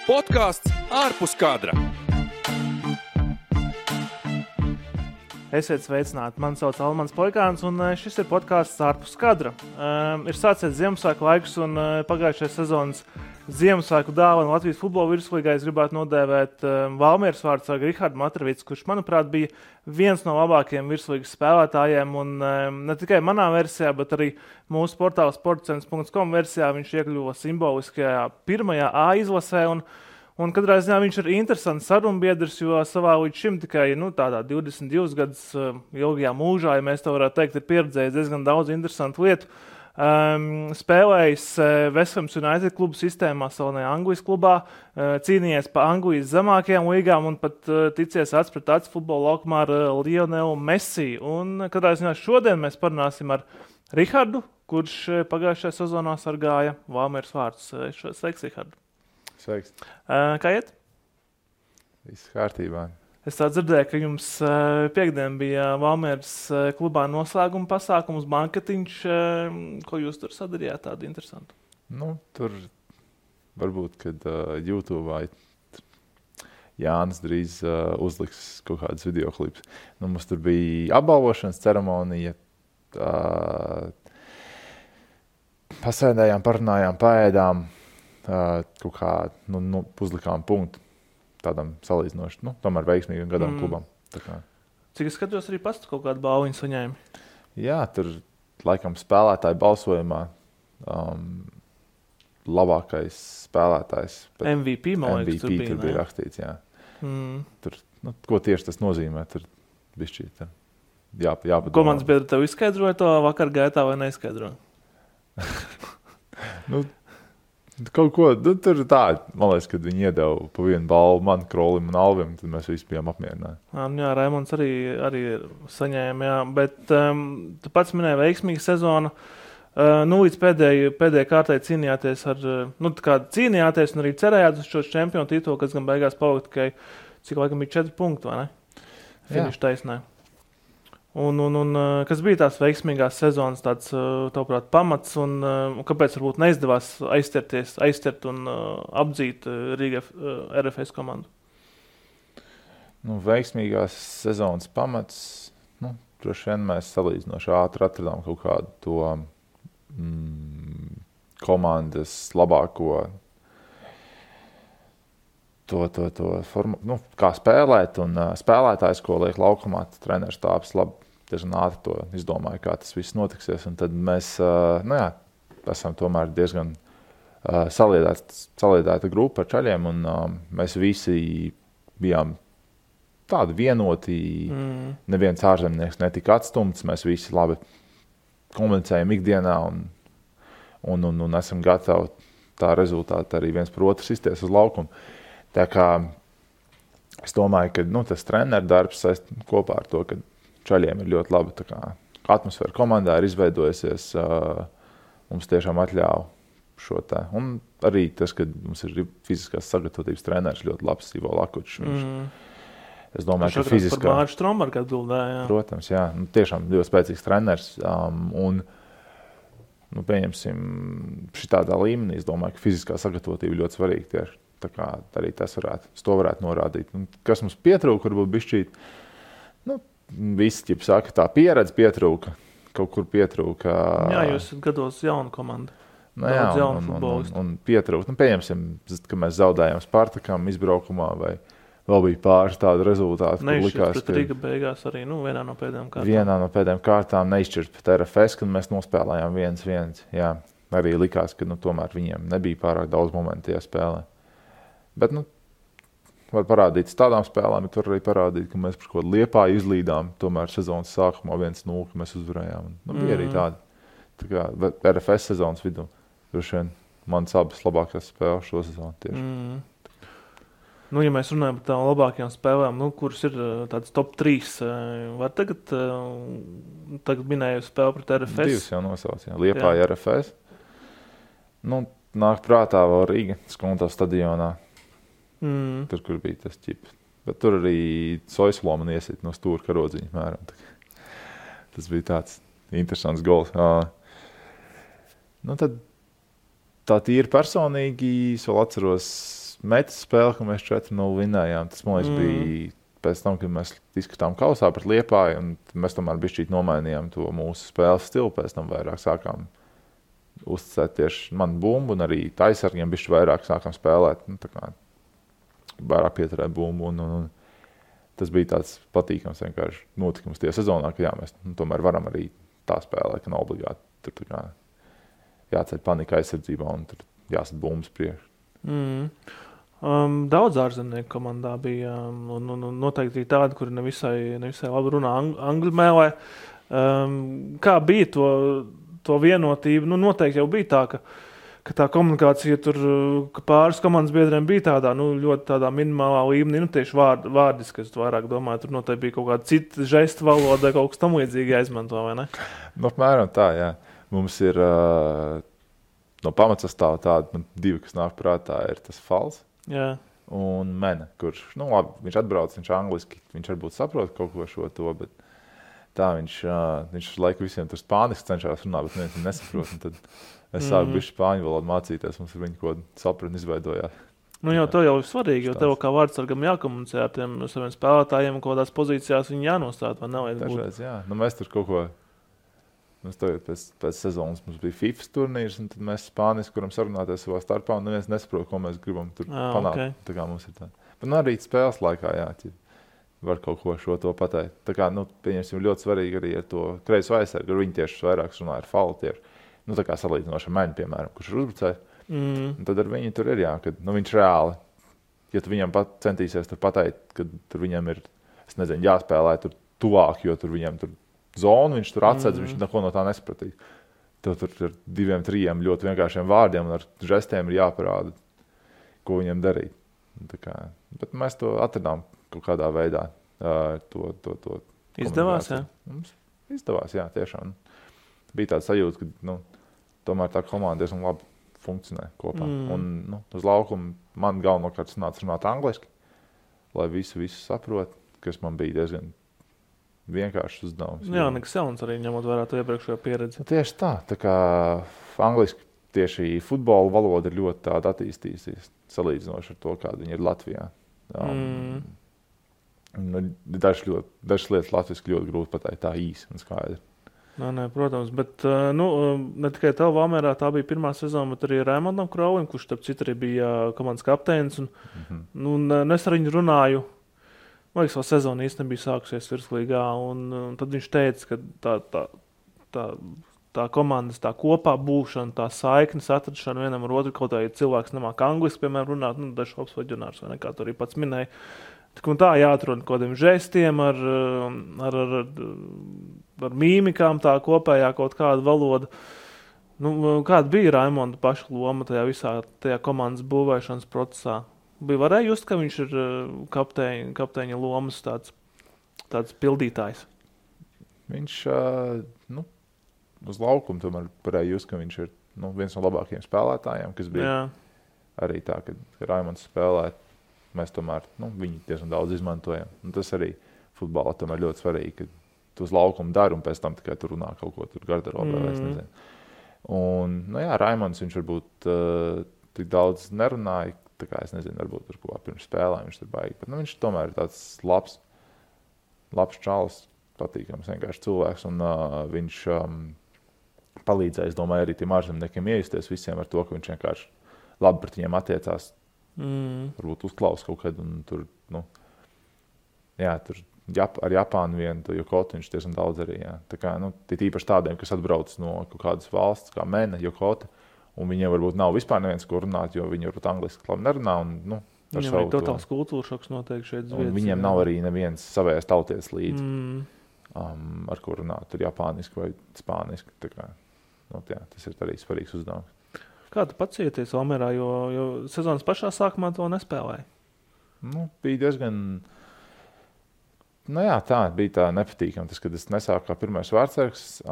Podcasts ārpus kadra. Esiet sveicināti, mani sauc Almans Poikāns, un šis ir podcasts ārpus kadra. Ir sācies Ziemassvētku laiks, un pagājušajā sezonas Ziemassvētku dāvanu Latvijas futbola virslīgā es gribētu nodēvēt Valmieras vārdsargu Rihardu Matravicu, kurš, manuprāt, bija viens no labākajiem virslīgas spēlētājiem, un ne tikai manā versijā, bet arī mūsu portāla sportcents.com versijā viņš iekļuva simboliskajā pirmajā A izlasē, un katrā ziņā viņš ir interesants sarunbiedrs, jo savā līdz šim tikai tādā 22 gadus ilgajā mūžā, ja mēs to varētu teikt, ir pieredzējis diezgan daudz interesantu lietu. Spēlējis West Ham United klubu sistēmā, salonajā Anglijas klubā, cīnījies pa Anglijas zemākajām līgām un pat ticies acs pret acs futbola laukumā ar Lionelu Messi. Un katrā ziņā šodien mēs parunāsim ar Rihardu, kurš pagājušajā sezonā sargāja Valmieras vārdus. Sveiks, Rihardu! Sveiks. Kā iet? Viss kārtībā. Es tā dzirdēju, ka jums piekdien bija Valmieras klubā noslēguma pasākums, banketiņš. Ko jūs tur sadarījāt tādu interesantu? Tur varbūt, kad YouTube Jānis drīz uzliks kaut kādas videoklips. Mums tur bija apbalvošanas ceremonija. Pasēdējām, parunājām, paēdām. Kaut kā uzlikām punktu tādam salīdzinoši, tomēr veiksmīgam gadam klubam. Cik es skatos, arī pats kaut kādu balviņu saņēmi? Jā, tur laikam spēlētāju balsojumā labākais spēlētājs. MVP, man liekas, tur bija rakstīts, jā. Tur, ko tieši tas nozīmē, tur bišķīt jāpadomā. Komandas biedri tev izskaidroja to vakar gaitā vai neizskaidroja? Kaut ko, tur tā, man liekas, kad viņi iedeva pa vienu balvu man, Krolim un Alvim, tad mēs visi bijām apmierināti. Jā, Raimonds arī saņēma, jā, bet tu pats minēji veiksmīgu sezonu. Līdz pēdējai kārtai cīnījāties cīnījāties un arī cerējāt uz šo čempionu titulu, kas gan beigās palika tikai, cik laikam bija 4 punkti, vai ne? Finiša taisnē. Un kas bija tās veiksmīgās sezonas tāds, tavuprāt, pamats, un kāpēc varbūt neizdevās aizķert un apdzīt Rīga RFS komandu? Veiksmīgās sezonas pamats, droši vien mēs salīdzinoši ātri atradām kaut kādu to komandas labāko to formu, kā spēlēt, un spēlētājs, ko liek laukumā, treneris tāps labi. Diezgan ātri to izdomāju, kā tas viss notiksies. Un tad mēs esam tomēr diezgan saliedēta grupa ar čaļiem, un mēs visi bijām tādi vienoti. Neviens ārzemnieks netika atstumts, mēs visi labi komunicējam ikdienā un esam gatavi tā rezultāti arī viens par otru sisties uz laukumu. Tā kā es domāju, ka tas treneru darbs kopā ar to, ka čaļiem ir ļoti laba atmosfēra komandā, ir izveidojusies, mums tiešām atļauj šo tā. Un arī tas, ka mums ir fiziskās sagatavotības treneris ļoti labs, Ivo Lakučs. Es domāju, ka fiziskā... Par Mārķu Strombergu atbildēja, jā. Protams, jā. Tiešām ļoti spēcīgs treneris. Pieņemsim, šitādā līmenī, es domāju, ka fiziskā sagatavotība ļoti svarīga tieši. Tā kā arī tas varētu norādīt. Kas mums pietrūka, varbūt bišķīt, visi saka, tā pieredze pietrūka, kaut kur pietrūka. Jā, jūs esat gados jauna komanda. Daudz jaunu futbolistu. Un pietrūka. Pieņemsim, ka mēs zaudējām Spartakam izbraukumā, vai vēl bija pāris tādu rezultātu. Neizšķirt pret Rīga beigās arī vienā no pēdējām kārtām. Vienā no pēdējām kārtām neizšķirt pret RFS, kad mēs nospēlējām 1-1. Jā, arī likās, ka tomēr viņiem nebija pārāk daudz momentu tajā spēlē. Bet, var parādīt tādām spēlēm, bet var arī parādīt, ka mēs par kaut kādu Liepāju izlīdām, tomēr sezonas sākumā 1-0, ka mēs uzvarējām. Bija arī tādi. Tā kā RFS sezonas vidū, droši vien manas abas labākās spēles šo sezonu tieši. Ja mēs runājam par tām labākajām spēlēm, kuras ir tāds top 3, var tagad minēju spēli pret RFS? 2 jau nosauc, jā. Liepāja RFS. Nāk prātā vēl Rīga, Skonto stadionā. Tur, kur bija tas ķips. Bet tur arī Soislo man iesit no stūra karodziņa mēram. Tas bija tāds interesants gols. Tad tā tīri personīgi, es vēl atceros, metas spēle, ka mēs 4-0 vinējām. Tas, man liekas, bija pēc tam, kad mēs izskatām kausā pret Liepāju, un mēs tomēr bišķīt nomainījām to mūsu spēles stilu. Pēc tam vairāk sākām uzticēt tieši manu bumbu, un arī taisargiem bišķi vairāk sākām spēlēt. Nu, tā kā vairāk pieturēt bumbu, un tas bija tāds patīkams vienkārši notikums tie sezonā, ka jā, mēs tomēr varam arī tā spēlēt, ka nav obligāti tur tā kā jāceļ panika aizsardzībā un tur jāsat bumbas priekš. Daudz ārzemnieku komandā bija, un noteikti arī tādi, kuri nevisai labi runā angļu mēlē. Kā bija to vienotību? Nu, noteikti jau bija tā, ka tā komunikācija tur, ka pāris komandas biedriem bija tādā, ļoti tādā minimālā līmenī, tieši vārdiski, es vairāk domāju, tur noteikti bija kaut kāda cita žesta valoda, kaut kas tam līdzīgi jāizmanto, vai ne? Nu, apmēram tā, jā. Mums ir no pamatsastāva tāda, divi, kas nāk prātā, ir tas Fals. Jā. Un Mene, kurš, labi, viņš atbrauc, viņš angliski, viņš varbūt saprot kaut ko šo to, bet tā viņš laiku visiem tur spāniski cenšās runāt, bet neviens nesaprot. Un tad es sāku bišķi spāņu valodu mācīties, mums ar viņu ko sapratni izveidojās. Jau tev jau ir svarīgi, jo tev kā vārdsargam jākomunicē ar tiem saviem spēlētājiem, kaut kādās pozīcijās viņi jānostāda, vai nevajag būt? Dažreiz, jā. Mēs tur kaut ko, mēs tagad pēc sezonas mums bija FIFA turnīrs, un tad mēs spāniski, kuram sarunāties savā starpā, un neviens nesaprot, ko mēs gribam tur panākt. Okay. Tā kā mums ir tā. Bet arī spēles laikā, jā, var kaut ko šo to pateikt. Tā kā, pieņemsim, ļoti svarīgi arī ar to kreiso aizsargu, ar viņu tieši vairāk runā ar Falu tieši. Tā kā salīdzinoši ar Meni, piemēram, kurš ir uzbrucējs. Un tad ar viņu tur ir, jā, kad viņš reāli, ja tu viņam centīsies tur pateikt, kad tur viņam ir, es nezinu, jāspēlē tur tuvāk, jo tur viņam tur zonu, viņš tur atsedz, viņš neko no tā nesapratīs. Tev tur ar 2-3 ļoti vienkāršiem vārdiem un ar žestiem ir jāparāda, ko viņam darīt. Bet mēs to atradām kaut kādā veidā. To Izdevās, jā? Mums izdevās, jā, tiešām. Bija tāds sajūta, ka tomēr tā komanda diezgan labi funkcionē kopā. Un uz laukumu man galvenokārt sanāca runāt angliski, lai visu saprot, kas man bija diezgan vienkāršs uzdevums. Jā, nekas jauns arī ņemot vērā to iepriekšējo pieredzi. Tieši tā. Tā kā angliski tieši futbola valoda ir ļoti tāda attīstījusies, salīdzinoši ar to, kāda viņa ir Latvijā. Dažas lietas latviski ļoti grūti pateikt tā īsi un skaidri. Nē, protams, bet ne tikai tev Valmierā tā bija pirmā sezona, bet arī Raimondam Kraulim, kurš starp citu arī bija komandas kapteinis. Es ar viņu runāju. Man liekas, vēl sezona īsti nebija sākusies virslīgā, un tad viņš teica, ka tā komandas tā kopā būšana, tā saiknes atrašana vienam ar otru, kaut arī cilvēks nemāk angliski, piemēram, runāt, dažs labs vaģionārs, vai nekā tu arī pats minēji. Tā jāatrod kaut kādiem žestiem, ar mīmikām, tā kopējā kaut kāda valoda. Kāda bija Raimonda paša loma tajā visā tajā komandas būvēšanas procesā? Varēja just, ka viņš ir kapteiņa lomas tāds pildītājs? Viņš uz laukumu tomēr varēja just, ka viņš ir viens no labākajiem spēlētājiem, kas bija arī tā, kad Raimonds spēlē. Mēs tomēr viņu diezgan daudz izmantojam. Un tas arī futbolā tomēr ļoti svarīgi, ka tu uz laukumu dari un pēc tam tikai tur runā kaut ko tur garderobē, es nezinu. Un, Raimonds viņš varbūt tik daudz nerunāja, tā kā es nezinu, varbūt tur kaut kā pirms spēlēm viņš tur baigi. Bet viņš tomēr ir tāds labs čalis, patīkams vienkārši cilvēks, un viņš palīdzēja, es domāju, arī tiem ārzemniekiem iejusties visiem ar to, ka viņš vienkārši labi pret viņiem attiecās. Varbūt uzklaus kaut kad, un tur, tur ar Japānu vienu, Yokotu viņš diezgan daudz arī, jā. Tā kā, tīpaši tādiem, kas atbrauc no kaut kādas valsts, kā Mene, Yokota, un viņiem varbūt nav vispār neviens, ko runāt, jo viņi varbūt angliski labi nerunā, un, viņam ir totāls kultūra šoks noteikti šeit zviedas. Un viņiem nav arī neviens savējās tauties līdzi, ar ko runāt, tur japāniski vai spāniski, tā kā, tas ir arī svarīgs uzdevums. Kā tu pats jūties Valmierā, jo sezonas pašā sākumā to nespēlēji? Bija diezgan... tā bija tā nepatīkama. Tas, kad es nesāku kā pirmais vārdsargs...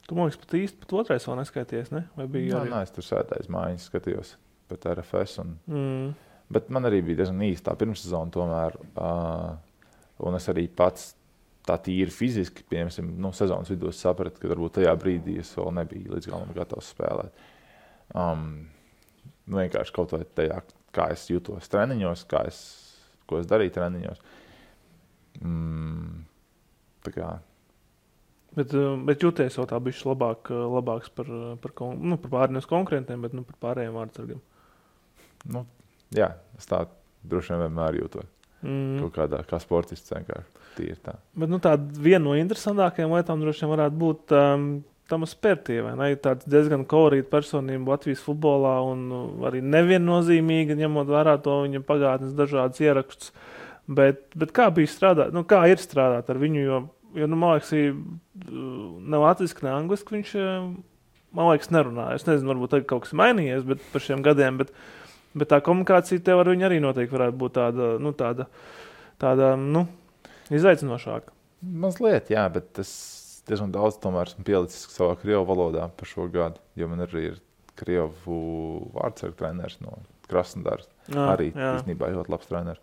Tu, man liekas, pat otrais vēl neskaities, ne? Vai bija arī? Nē, es tur sēdēju mājiņas, skatījos pēc RFS. Bet man arī bija diezgan īsta tā pirmssezona tomēr. Un es arī pats tā tīri fiziski, piemēram, sezonas vidū sapratu, ka varbūt tajā brīdī es vēl nebiju līdz galam gatavs spēlēt. Vienkārši kaut vai tajā kā es jūtos treniņos, ko es darīju treniņos. Tā kā... Bet jūties jau tā bišķi labāks par pārējiem konkurentiem, bet par pārējiem vārdsargiem. Nu, jā, es tā droši vien vienmēr jūtos. Kaut kādā, kā sportists vienkārši. Tīri tā. Bet tāda viena no interesantākajām lietām droši vien varētu būt Tamas Pērtie, vai ne? Tāds diezgan kolorīta personība Latvijas futbolā un arī neviennozīmīga, ņemot vērā to viņa pagātnes dažādas ierakstus. Bet kā bija strādāt? Kā ir strādāt ar viņu, jo man liekas, ne latviski, ne angliski viņš, man liekas, nerunāja. Es nezinu, varbūt tagad kaut kas mainījies, bet par šiem gadiem, bet tā komunikācija tev ar viņu arī noteikti varētu būt tāda izaicinošāka. Mazliet, jā, bet es diezgan daudz tomēr esmu pielicis savā krievu valodā par šo gadu, jo man arī ir krievu vārdsargu treneris no Krasnodars. Arī īstenībā ļoti labs treneris.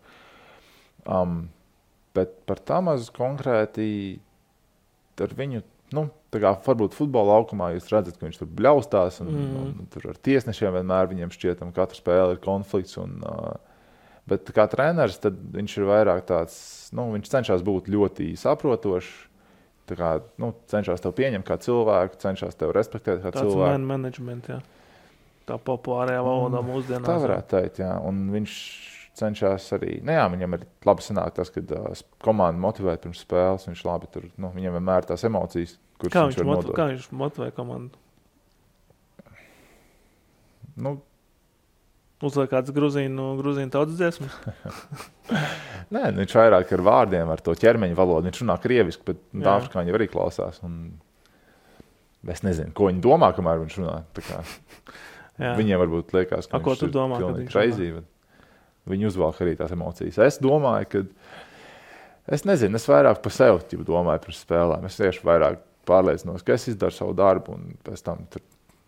Bet par Tamazu konkrēti ar viņu, tā kā varbūt futbola laukumā jūs redzat, ka viņš tur bļaustās un tur ar tiesnešiem vienmēr viņiem šķietam, katra spēle ir konflikts. Bet kā treneris, tad viņš ir vairāk tāds, viņš cenšas būt ļoti saprotošs, tā kā, cenšas tev pieņemt kā cilvēku, cenšas tev respektēt kā cilvēku. Tāds man management, jā. Tā populārajā valodā mūsdienās. Tā varētu teikt, jā. Un viņš cenšas arī, viņam ir labi sanāk tas, kad komanda motivē pirms spēles, viņš labi tur, viņam vienmēr tās emocijas, kuras viņš var nodot. Kā viņš motivē komandu? Uzliek kāds gruzīnu tautas dziesmas? Nē, viņš vairāk ar vārdiem, ar to ķermeņa valodu. Viņš runā krieviski, bet afrikāņi jau arī klausās. Es nezinu, ko viņi domā, kamēr viņš runā. Viņiem varbūt liekas, ka viņš ir pilnīgi crazy. Viņi uzvalk arī tās emocijas. Es domāju, ka... Es nezinu, es vairāk par sevi domāju par spēlēm. Es tieši vairāk pārliecinos, ka es izdaru savu darbu, un pēc tam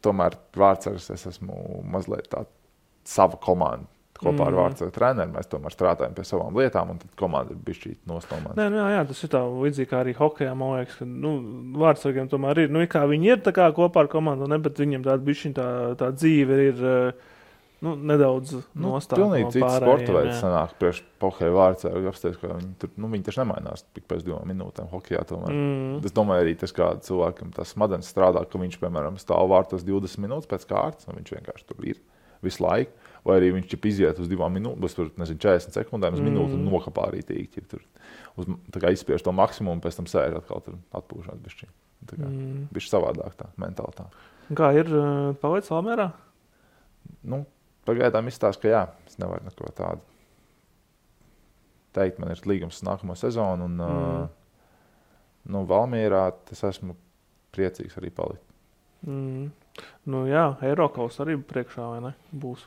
tomēr vārdsargs es esmu mazliet tā sava komanda. Kopā ar vārdsargu treneru mēs tomēr strādājam pie savām lietām, un tad komanda ir bišķīt nostomāta. Jā, tas ir tā līdzīgi kā arī hokejā, man liekas, ka vārdsargiem tomēr ir, kā viņi ir tā kā kopā ar komandu, bet viņiem tāda bišķiņ tā dzīve ir nedaudz nostāta no pārējiem. Pilnīgi cits sporta veids sanāk priekš hokeja vārdsargu apstāties, ka viņi taču nemainās tik pēc 2 minūtēm hokejā tomēr. Es domāju arī tas, kā cilvēkam tas smadzenes strādā, ka viņš, piemēram, stāv vārtos 20 minūtes pēc kārtas, un viņš vienkārši tur ir visu laiku, vai arī viņš iziet uz 2 minūtes, 40 sekundēm uz minūti un nokapā arī tīk. Tā kā izspiež to maksimumu, pēc tam sēž atkal tur atpūšāt bišķi. Tā kā bišķi savādāk tā, mentāli tā. Kā ir paveic Valmierā? Pagaidām izstāst, ka jā, es nevaru neko tādu teikt. Man ir līgums nākamo sezonu un Valmierā es esmu priecīgs arī palikt. Eirokaus arī priekšā, vai ne? Būs.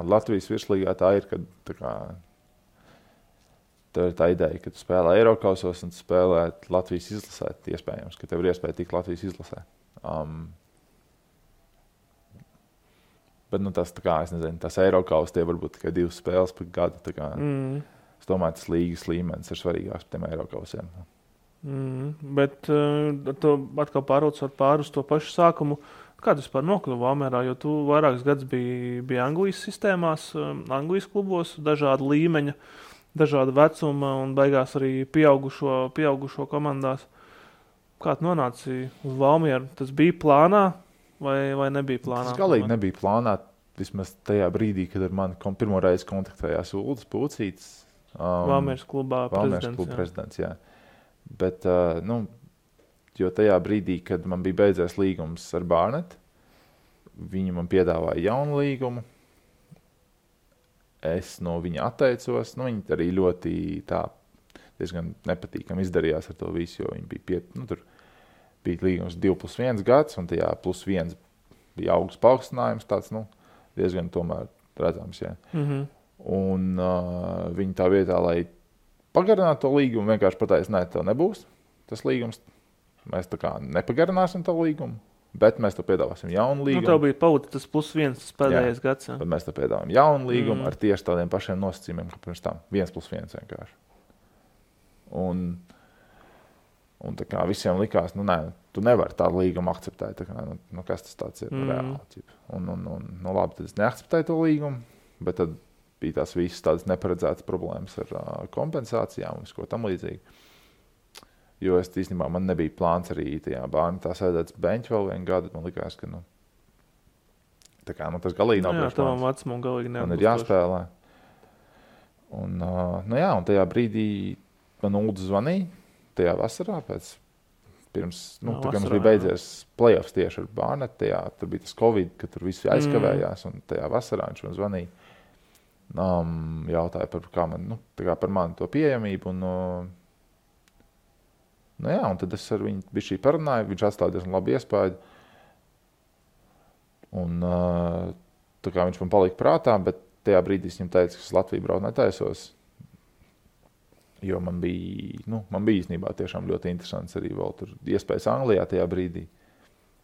Latvijas virslīgā tā ir, kad tā ir tā ideja, ka tu spēlē Eirokausos un tu spēlē Latvijas izlasē, iespējams, ka tev ir iespēja tikt Latvijas izlasē. Bet tas tā kā, es nezinu, tas Eirokaus tie varbūt tikai 2 spēles par gadu. Tā kā, es domāju, tas līgas līmenis ir svarīgāks par tiem Eirokausiem. Bet tu atkal pār uz to pašu sākumu. Kā tu vispār nokļuvi Valmierā, jo tu vairākus gadus biji Anglijas sistēmās, Anglijas klubos, dažāda līmeņa, dažāda vecuma un beigās arī pieaugušo komandās. Kā tu nonāci uz Valmieru? Tas bija plānā vai nebija plānā? Tas galīgi nebija plānā, vismaz tajā brīdī, kad ar mani pirmo reizi kontaktējās Uldis Pūcītis. Valmieras klubā prezidents, jā. Bet, jo tajā brīdī, kad man bija beidzies līgums ar Barnet, viņi man piedāvāja jaunu līgumu. Es no viņa atteicos. Viņi arī ļoti diezgan nepatīkami izdarījās ar to visu, jo viņi bija tur bija līgums 2+1 gads, un tajā +1 bija augsts paaugstinājums, tāds, diezgan tomēr redzams, jā. Un viņi tā vietā, lai pagarinātu to līgumu, vienkārši pateica, nē, tev nebūs tas līgums. Mēs tā kā nepagarināsim to līgumu, bet mēs tev piedāvāsim jaunu līgumu. Tev bija pauta tas +1, tas pēdējais gads. Jā. Bet mēs tev piedāvājam jaunu līgumu ar tieši tādiem pašiem nosacījumiem, kā pirms tam. 1+1 vienkārši. Un tā kā visiem likās, nē, tu nevari tādu līgumu akceptēt. Tā kā, kas tas tāds ir reāli? Un labi, tad es neakceptēju to līgumu, bet tad bija tās visas tādas neparedzētas problēmas ar kompensācijām un ko tam līdzīgi. Jo es īstenībā man nebija plāns arī tajā bērnu tā sēdēt beņķi vēl vienu gadu. Man likās, ka tā kā, tas galīgi nav priekš tavam vecumam galīgi man ir jāspēlē. Un, un tajā brīdī man Uldis zvanīja tajā vasarā pirms, tā kā mums bija beidzies playoffs tieši ar Barnetu, tur bija tas Covid, ka tur visi aizkavējās, un tajā vasarā viņš man zvanīja. Jautāja par mani to pieejamību, un tad es ar viņu bišķī parunāju, viņš atstāja diezgan labu iespēju, un tā kā viņš man palika prātā, bet tajā brīdī es viņam teicu, ka es Latviju braukt netaisos, jo man bija īstenībā tiešām ļoti interesants arī vēl tur iespējas Anglijā tajā brīdī.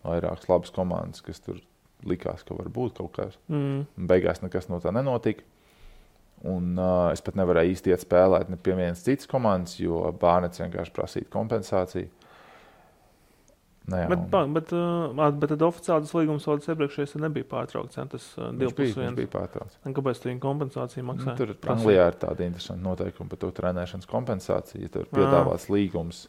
Vairākas labas komandas, kas tur likās, ka var būt kaut kas. Beigās nekas no tā nenotika. Un es pat nevarēju īsti iet spēlēt ne pie vienas citas komandas, jo Bārnets vienkārši prasīja kompensāciju. Bet tad oficiāli tas līgums vēl iepriekšējais nebija pārtraukts, tas 2+1. Viņš bija pārtraukts. Kāpēc tu viņu kompensāciju maksāja? Tur Anglijā ir tāda interesanta noteikuma par to trenēšanas kompensāciju, ja tur ir piedāvāts līgums.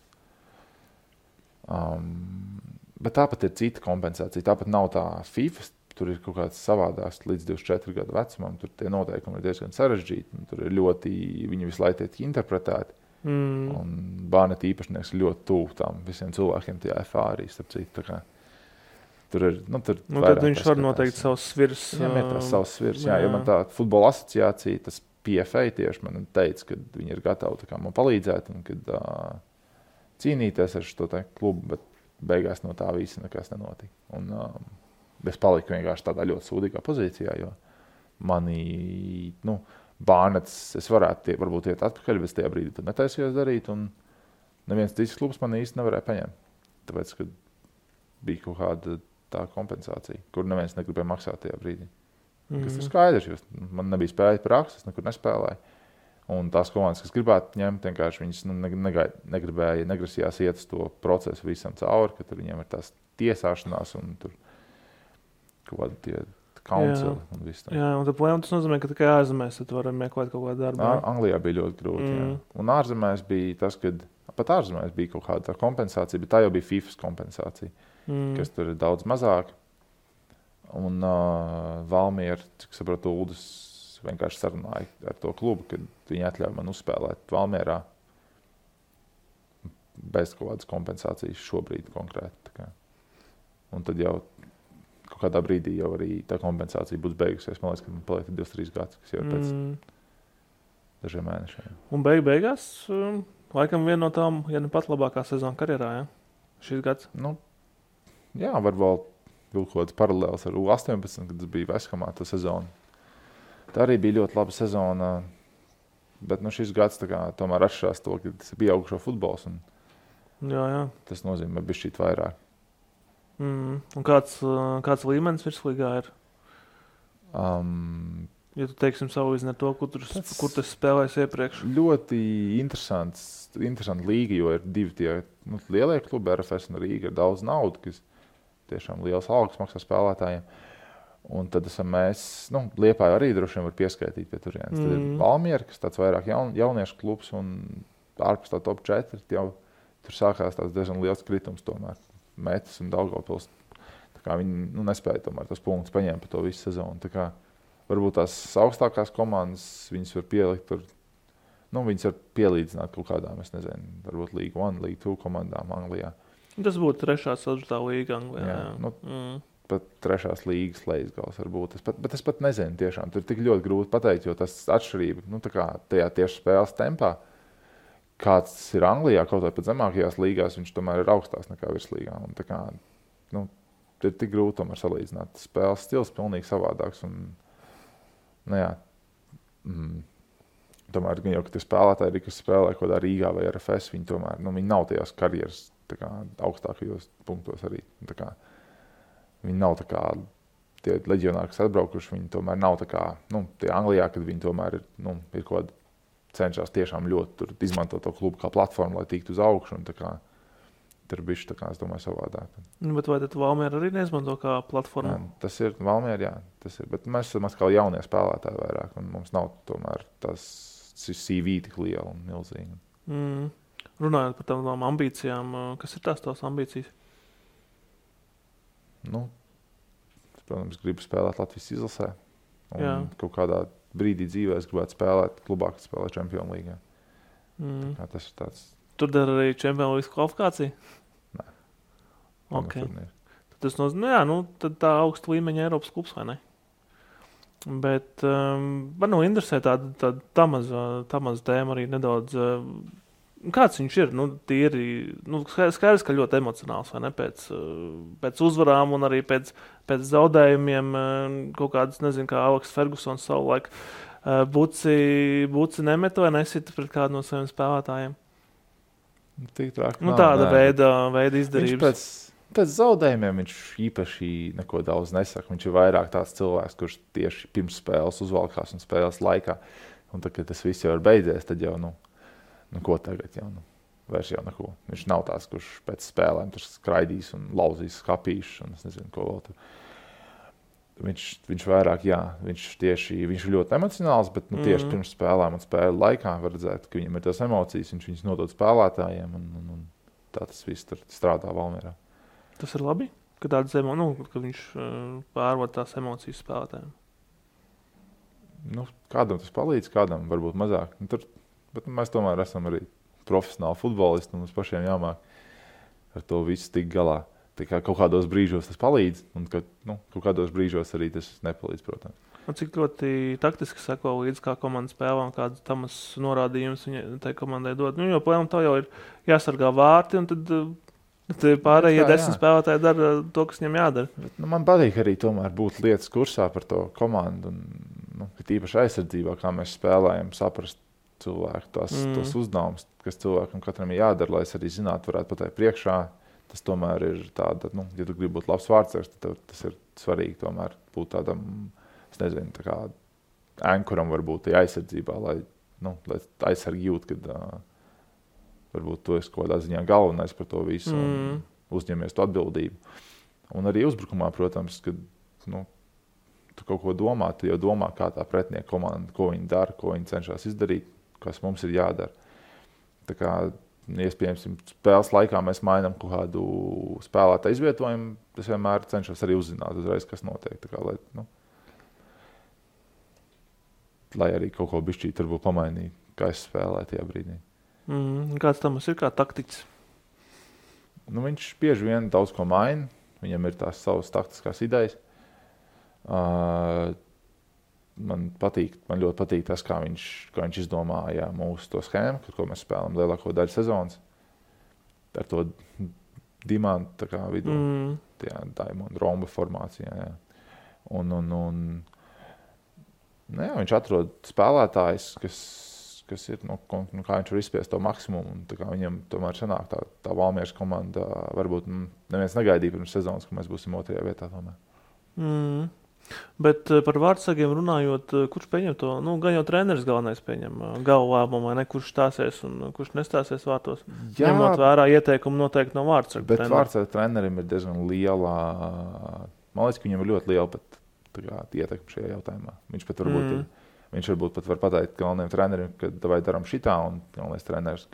Bet tāpat ir cita kompensācija. Tāpat nav tā FIFA, tur ir kaut kāds savādāks līdz 24 gadu vecumam. Tur tie noteikumi ir diezgan sarežģīti. Tur ir viņi visu laiku tiek interpretēti. Un Bārneta īpašnieks ir ļoti tuvu tām visiem cilvēkiem tajā FA arī, starp citu. Tur ir, tad viņš var noteikt savus svirs. Viņam ir tās savus svirs, jo man tā futbola asociācija, tas PFA tieši man teica, ka viņi ir gatavi man palīdzēt un kad cīnīties ar šo klubu, bet beigās no tā visa nekas nenotika. Un es paliku vienkārši tādā ļoti sūdīgā pozīcijā, jo mani, Bārnets, es varētu varbūt iet atpakaļ, bet tajā brīdī tad netaisījos darīt, un neviens cits klubs man īsti nevarēja paņemt. Tāpēc, ka bija kaut kāda tā kompensācija, kur neviens negribēja maksāt tajā brīdī. Kas ir skaidrs, jo man nebija spēja prakses, nekur nespēlēju. Un tās komandas, kas gribētu ņemt, vienkārši viņas negrasījās iet uz to procesu visam cauri, ka tur viņiem ir tās tiesāšanās un tur kaut kādi tie council un viss tā. Jā, un tas nozīmē, ka tikai ārzemēs tu vari meklēt kaut kādu darbu. Anglijā bija ļoti grūti, jā. Un ārzemēs bija tas, kad pat ārzemēs bija kaut kāda kompensācija, bet tā jau bija FIFAs kompensācija, kas tur ir daudz mazāk. Un Valmiera, cik saprotu, Uldis vienkārši sarunāja ar to klubu, kad viņi atļauj man uzspēlēt Valmierā bez kaut kādas kompensācijas šobrīd konkrēti. Un tad jau kaut kādā brīdī jau arī tā kompensācija būs beigusies. Man liekas, ka man paliek 2-3 gadus, kas jau ir pēc dažiem mēnešiem. Un beigās, laikam viena no tām, ja ne pat labākā sezona karjerā, ja? Šis gads? Jā, var vēl kaut kāds paralēls ar U18, kad tas bija Veshamā tā sezona. Tā arī bija ļoti laba sezona, bet šis gads tomēr atšķirās to, ka tas ir pieaugušo futbols. Jā. Tas nozīmē bišķīt vairāk. Un kāds līmenis virslīgā ir? Ja tu teiksim savu izni ar to, kur tas spēlēs iepriekš? Ļoti interesanta līga, jo ir divi tie lielie klubi, RFS un Rīga, ir daudz naudu, kas tiešām liels algas maksā spēlētājiem. Un tad esam mēs, Liepāja arī droši vien var pieskaitīt pie turienes. Tad ir Valmiera, kas tāds vairāk jauniešu klubs un ārpus tā top 4, jau tur sākās tāds diezgan liels kritums tomēr. Metis un Daugavpils. Viņi nespēja tomēr tos punktus paņemt par to visu sezonu. Varbūt tās augstākās komandas viņas var pielikt tur, viņas var pielīdzināt kaut kādām, es nezinu, varbūt League 1, League 2 komandām Anglijā. Tas būtu 3. 4. līga Anglijā. Jā. Pat 3. līgas lejas varbūt. Bet es pat nezinu tiešām. Tur ir tik ļoti grūti pateikt, jo tas atšķirība, tajā tieši spēles tempā, kāds tas ir Anglijā, kaut vai pat zemākajās līgās, viņš tomēr ir augstāks nekā virslīgā. Un ir tik grūti tomēr salīdzināt. Spēles stils pilnīgi savādāks. Un, tomēr, jau, kad ir spēlētāji, kas spēlē kaut kādā Rīgā vai RFS, viņi tomēr, viņi nav tajās karjeras augstākajos punktos arī. Viņi nav tie leģionāri, kas atbraukuši, viņi tomēr nav tie Anglijā, kad viņi tomēr ir kaut kāda cenšas tiešām ļoti izmantot to klubu kā platformu, lai tiktu uz augšu. tur bišķi, tā kā es domāju, savādāk. Bet vai tad Valmiera arī neizmanto kā platformu? Jā, tas ir Valmiera, jā, tas ir. Bet mēs esam atkal jaunie spēlētāji vairāk, un mums nav tomēr tas CV tik liela un milzīga. Runājot par tām ambīcijām, kas ir tās ambīcijas? Nu, es, protams, gribu spēlēt Latvijas izlasē. Un Jā. kaut kādā brīdī dzīvē es gribētu spēlēt klubā, kas spēlē Čempionu līgā. Tas ir tāds... Tur dara arī Čempionu līgas kvalifikāciju? Nē. Okay. Tas nozīmē, tad tā augsta līmeņa Eiropas klubs, vai ne? Bet man interesē tāda Tamas tēma arī nedaudz. Kāds viņš ir? Skaidrs, ka ļoti emocionāls, vai ne? Pēc uzvarām un arī pēc zaudējumiem kaut kādas, nezinu, kā Aleks Fergusons savulaik Buci nemet vai nesita pret kādu no saviem spēlētājiem. Tik trāk, tāda veida izdarības. Pēc zaudējumiem viņš īpaši neko daudz nesaka. Viņš ir vairāk tāds cilvēks, kurš tieši pirms spēles uzvalkās un spēles laikā. Un tad, kad tas viss jau ir beidzies, tad jau, ko tagad jau, vairs jau neko. Viņš nav tāds, kurš pēc spēlēm tur skraidīs un lauzīs skapīšus un es nezinu, ko vēl tur. Viņš vairāk, viņš ir ļoti emocionāls, bet tieši pirms spēlēm un spēļu laikā var redzēt, ka viņam ir tās emocijas, viņš viņas nodod spēlētājiem un tā tas viss tur strādā Valmierā. Tas ir labi, ka ka viņš pārvod tās emocijas spēlētājiem. Kādam tas palīdz, kādam varbūt mazāk. Bet mēs tomēr esam arī profesionāli futbolisti un mums pašiem jāmāk ar to visu tik galā. Tā kā kaut kādos brīžos tas palīdz, un kaut kādos brīžos arī tas nepalīdz, protams. Un cik ļoti taktiski seko līdz kā komanda spēlē un kādas Tamas norādījumus viņa tai komandai dod. Jo plēnam tā jau ir jāsargā vārti, un tad pārējie 10 spēlētāji dara to, kas viņam jādara. Bet, man patīk arī tomēr būt lietas kursā par to komandu, un tīpaši aizsardzībā, kā mēs spēlējam, saprast cilvēku tos uzdevumus, kas cilvēkam katram ir jādara, lai es arī zinātu, varētu pateikt priekšā. Tas tomēr ir tāda, ja tu gribi būt labs vārdsargs, tad tas ir svarīgi tomēr būt tādam, es nezinu, tā kā ankuram varbūt tajā aizsardzībā, lai aizsargi jūt, kad varbūt tu esi kaut kādā ziņā galvenais par to visu un uzņemies to atbildību. Un arī uzbrukumā, protams, kad tu kaut ko domā, tu jau domā, kā tā pretinieka komanda, ko viņi dara, ko viņi cenšas izdarīt, kas mums ir jādara. Tā kā iespējams, spēles laikā mēs mainām kaut kādu spēlētāju izvietojumu. Es vienmēr cenšos arī uzzināt uzreiz, kas notiek. Tā kā, lai arī kaut ko bišķīt varbūt pamainīt, kā es spēlēju tajā brīdī. Kāds Tamas ir kā taktiķis? Viņš bieži vien daudz ko maina. Viņam ir tās savas taktiskās idejas. Man ļoti patīk tas, kā viņš izdomāja mūsu to schēmu, ko mēs spēlām lielāko daļu sezonas. Ar to dimantu tā kā vidu, diamondu romba formācijā. Jā. Viņš atrod spēlētājs, kas ir, kā viņš var izspiest to maksimumu. Un, tā kā viņam tomēr sanāk tā Valmieras komanda, varbūt neviens negaidīja pirms sezonas, ka mēs būsim 2. vietā tomēr. Bet par vārdsargiem runājot, kurš pieņem to? Gan jau treneris galvenais pieņem galvu lēmumu, vai ne? Kurš stāsies un kurš nestāsies vārtos? Jā, ņemot vērā ieteikumu noteikti no vārdsarga trenera. Bet vārdsarga trenerim ir diezgan liela, man liekas, ka viņam ir ļoti liela pat ietekme šajā jautājumā. Viņš varbūt pat var pateikt galvenajam trenerim, ka vai daram šitā, un galvenais treneris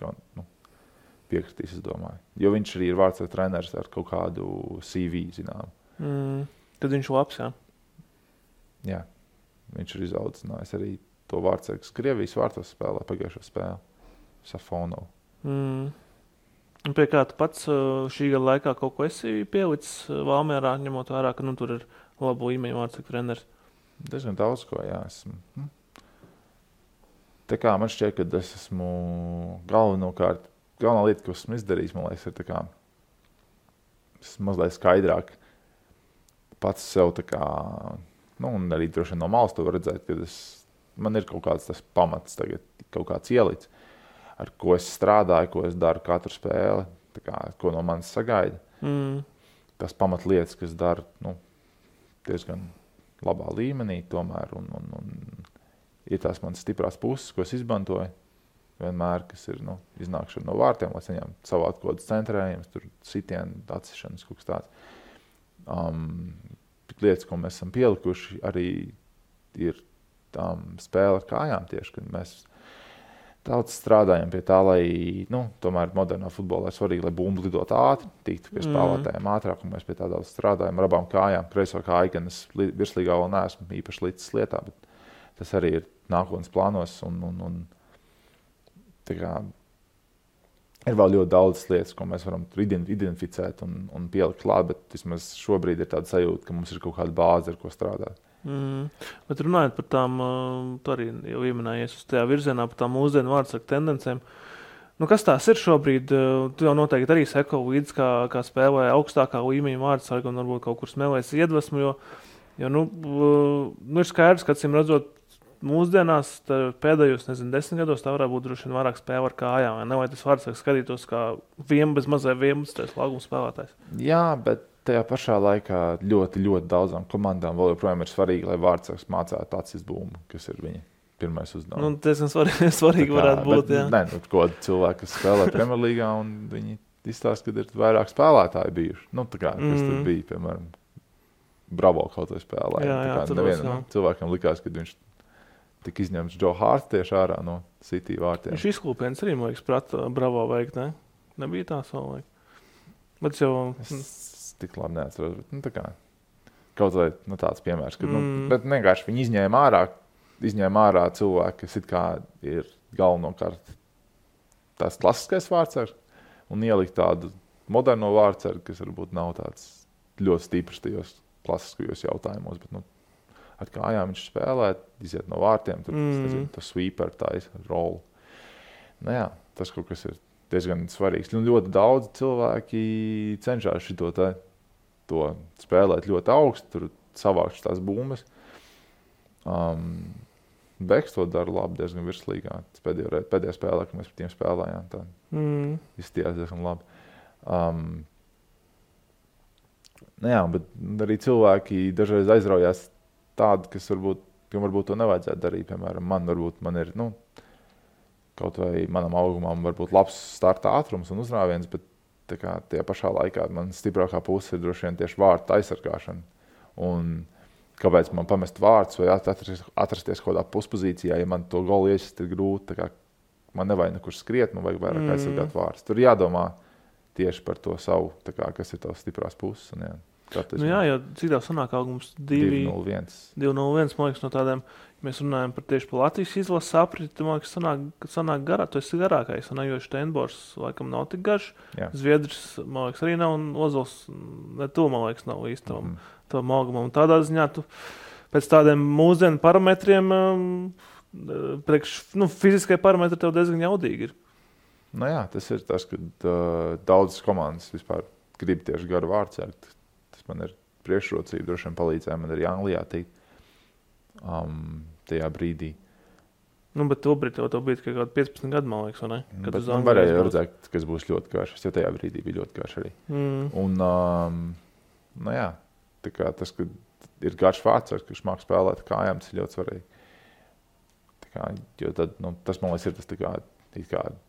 piekritīs, es domāju. Jo viņš arī ir vārdsarga treneris ar kaut kādu CV, zinām. Tad viņš labs, jā? Jā, viņš ir izaudzinājis arī to vārdsargu, kas Krievijas vārtos spēlē pagājušo spēli. Safonovu. Pie kā tu pats šī gada laikā kaut ko esi pielicis Valmierā, ņemot vērā, ka tur ir labu līmeņu vārdsargu treneris? Diezgan daudz ko, jā. Tā kā man šķiet, ka es esmu galvenā lieta, ko esmu izdarījis, man liekas, ir tā kā mazliet skaidrāk pats sev tā kā, un arī droši vien no malas to var redzēt, ka man ir kaut kāds tas pamats tagad, kaut kāds ielicis, ar ko es strādāju, ko es daru katru spēli, tā kā, ko no manis sagaida. Tas pamatlietas, kas dara, diezgan labā līmenī tomēr, un ir tās manas stiprās puses, ko es izmantoju. vienmēr, kas ir iznākšana no vārtiem, lai saņemtu savu atkodas centrējumus, tur sitienu, atsišanas, kaut kas tāds. Lietas, ko mēs esam pielikuši, arī ir spēle ar kājām tieši, kad mēs daudz strādājam pie tā, lai, tomēr modernā futbolā ir svarīgi, lai bumbu lidot ātri, tiktu pie spēlētājiem ātrāk, un mēs pie tā daudz strādājam ar abām kājām. Kreiso kāju, gan es virslīgā vēl neesmu īpaši līdz lietā, bet tas arī ir nākotnes plānos, un tā kā ir vēl ļoti daudz lietas, ko mēs varam identificēt un pielikt klāt, bet vismaz šobrīd ir tāda sajūta, ka mums ir kaut kāda bāze, ar ko strādāt. Bet runājot par tām, tu arī jau ieminējies uz tajā virzienā, par tām mūsdienu vārdsargu tendencēm. Kas tās ir šobrīd? Tu jau noteikti arī seko līdz, kā spēlē augstākā līmeņa vārdsargu un varbūt kaut kur smēlēs iedvesmu, jo ir skaidrs, ka acīm redzot mūsdienās pēdējos, 10 gados tā varētu būt droši vien vairāk spēle ar kājām, vai tas vārdsargs skatītos kā bez mazai 11. lauguma spēlētājs? Jā, bet tajā pašā laikā ļoti, ļoti daudzām komandām vēl joprojām ir svarīgi, lai vārdsargs mācētu acis bumbu, kas ir viņa pirmais uzdevums. Tas svarīgi varētu būt, jā. Nē, ko cilvēki, kas spēlē Premjerlīgā, un viņi izstāsta, ka ir vairāk spēlētāji bijuši. Kas tur bija, piemēram, Bravo kaut vai spēlē. Cilvēkam likās, ka viņš tika izņemts Joe Hart tieši ārā no City vārtiem. Viņš izklūpiens arī, man liekas, prata Bravo veikt, ne? Nebija tā savulaik. Bet jau... Es tik labi neatceros, bet kaut vai tāds piemērs, ka, bet vienkārši viņi izņēma ārā cilvēki, kas it kā ir galvenokārt tās klasiskais vārdsargs, un ielikt tādu moderno vārdsargu, kas varbūt nav tāds ļoti stiprs tajos klasiskajos jautājumos, bet, ar kājām viņš spēlē, iziet no vārtiem, tur, tas sweeper, rolu. Tas kaut kas ir diezgan svarīgs. Ļoti daudz cilvēki cenšas to spēlēt ļoti augstu, tur savākt tās bumbas. Beks to dara labi, diezgan virslīgā. Pēdējā spēlē, kad mēs par tiem spēlējām, tā izstījās diezgan labi. Bet arī cilvēki dažreiz aizraujās tādi, kam varbūt to nevajadzētu darīt. Piemēram, man ir, kaut vai manam augumam varbūt labs starta ātrums un uzrāviens, bet tajā pašā laikā man stiprākā puse ir droši vien tieši vārtu aizsargāšana. Un kāpēc man pamest vārtus vai atrasties kaut kādā puspozīcijā, ja man to golu iesist ir grūti, man nevajag nekur skriet, man vajag vairāk aizsargāt vārtus. Tur jādomā tieši par to savu, kas ir tavs stiprās puses. Un, jo cik tā sanāk augums 2-0-1. 2-0-1, man liekas, no tādiem, ja mēs runājam tieši par Latvijas izlases apriti, man liekas, sanāk garā, tu esi garākais, jo Steinbors laikam nav tik garš, Zviedrs, man liekas, arī nav, un Ozols, ne to, man liekas, nav īsti tavam augumam. Un tādā ziņā tu pēc tādiem mūsdienu parametriem, fiziskai parametri tev diezgan jaudīgi ir. Tas ir tas, kad daudzas komandas vispār grib tieši garu vārdsargu. Tas man ir priekšrocība, droši vien palīdzēja man arī Anglijā tikt tajā brīdī. Bet to brīdī tev bija tikai 15 gadu, man liekas, vai ne? Bet man varēja redzēt, kas būs ļoti garš. Es jau tajā brīdī bija ļoti garš arī. Un, tas, ka ir garš vārdsargs, kurš māk spēlēt kājām, tas ir ļoti svarīgi. Jo tad, tas, man liekas, ir tas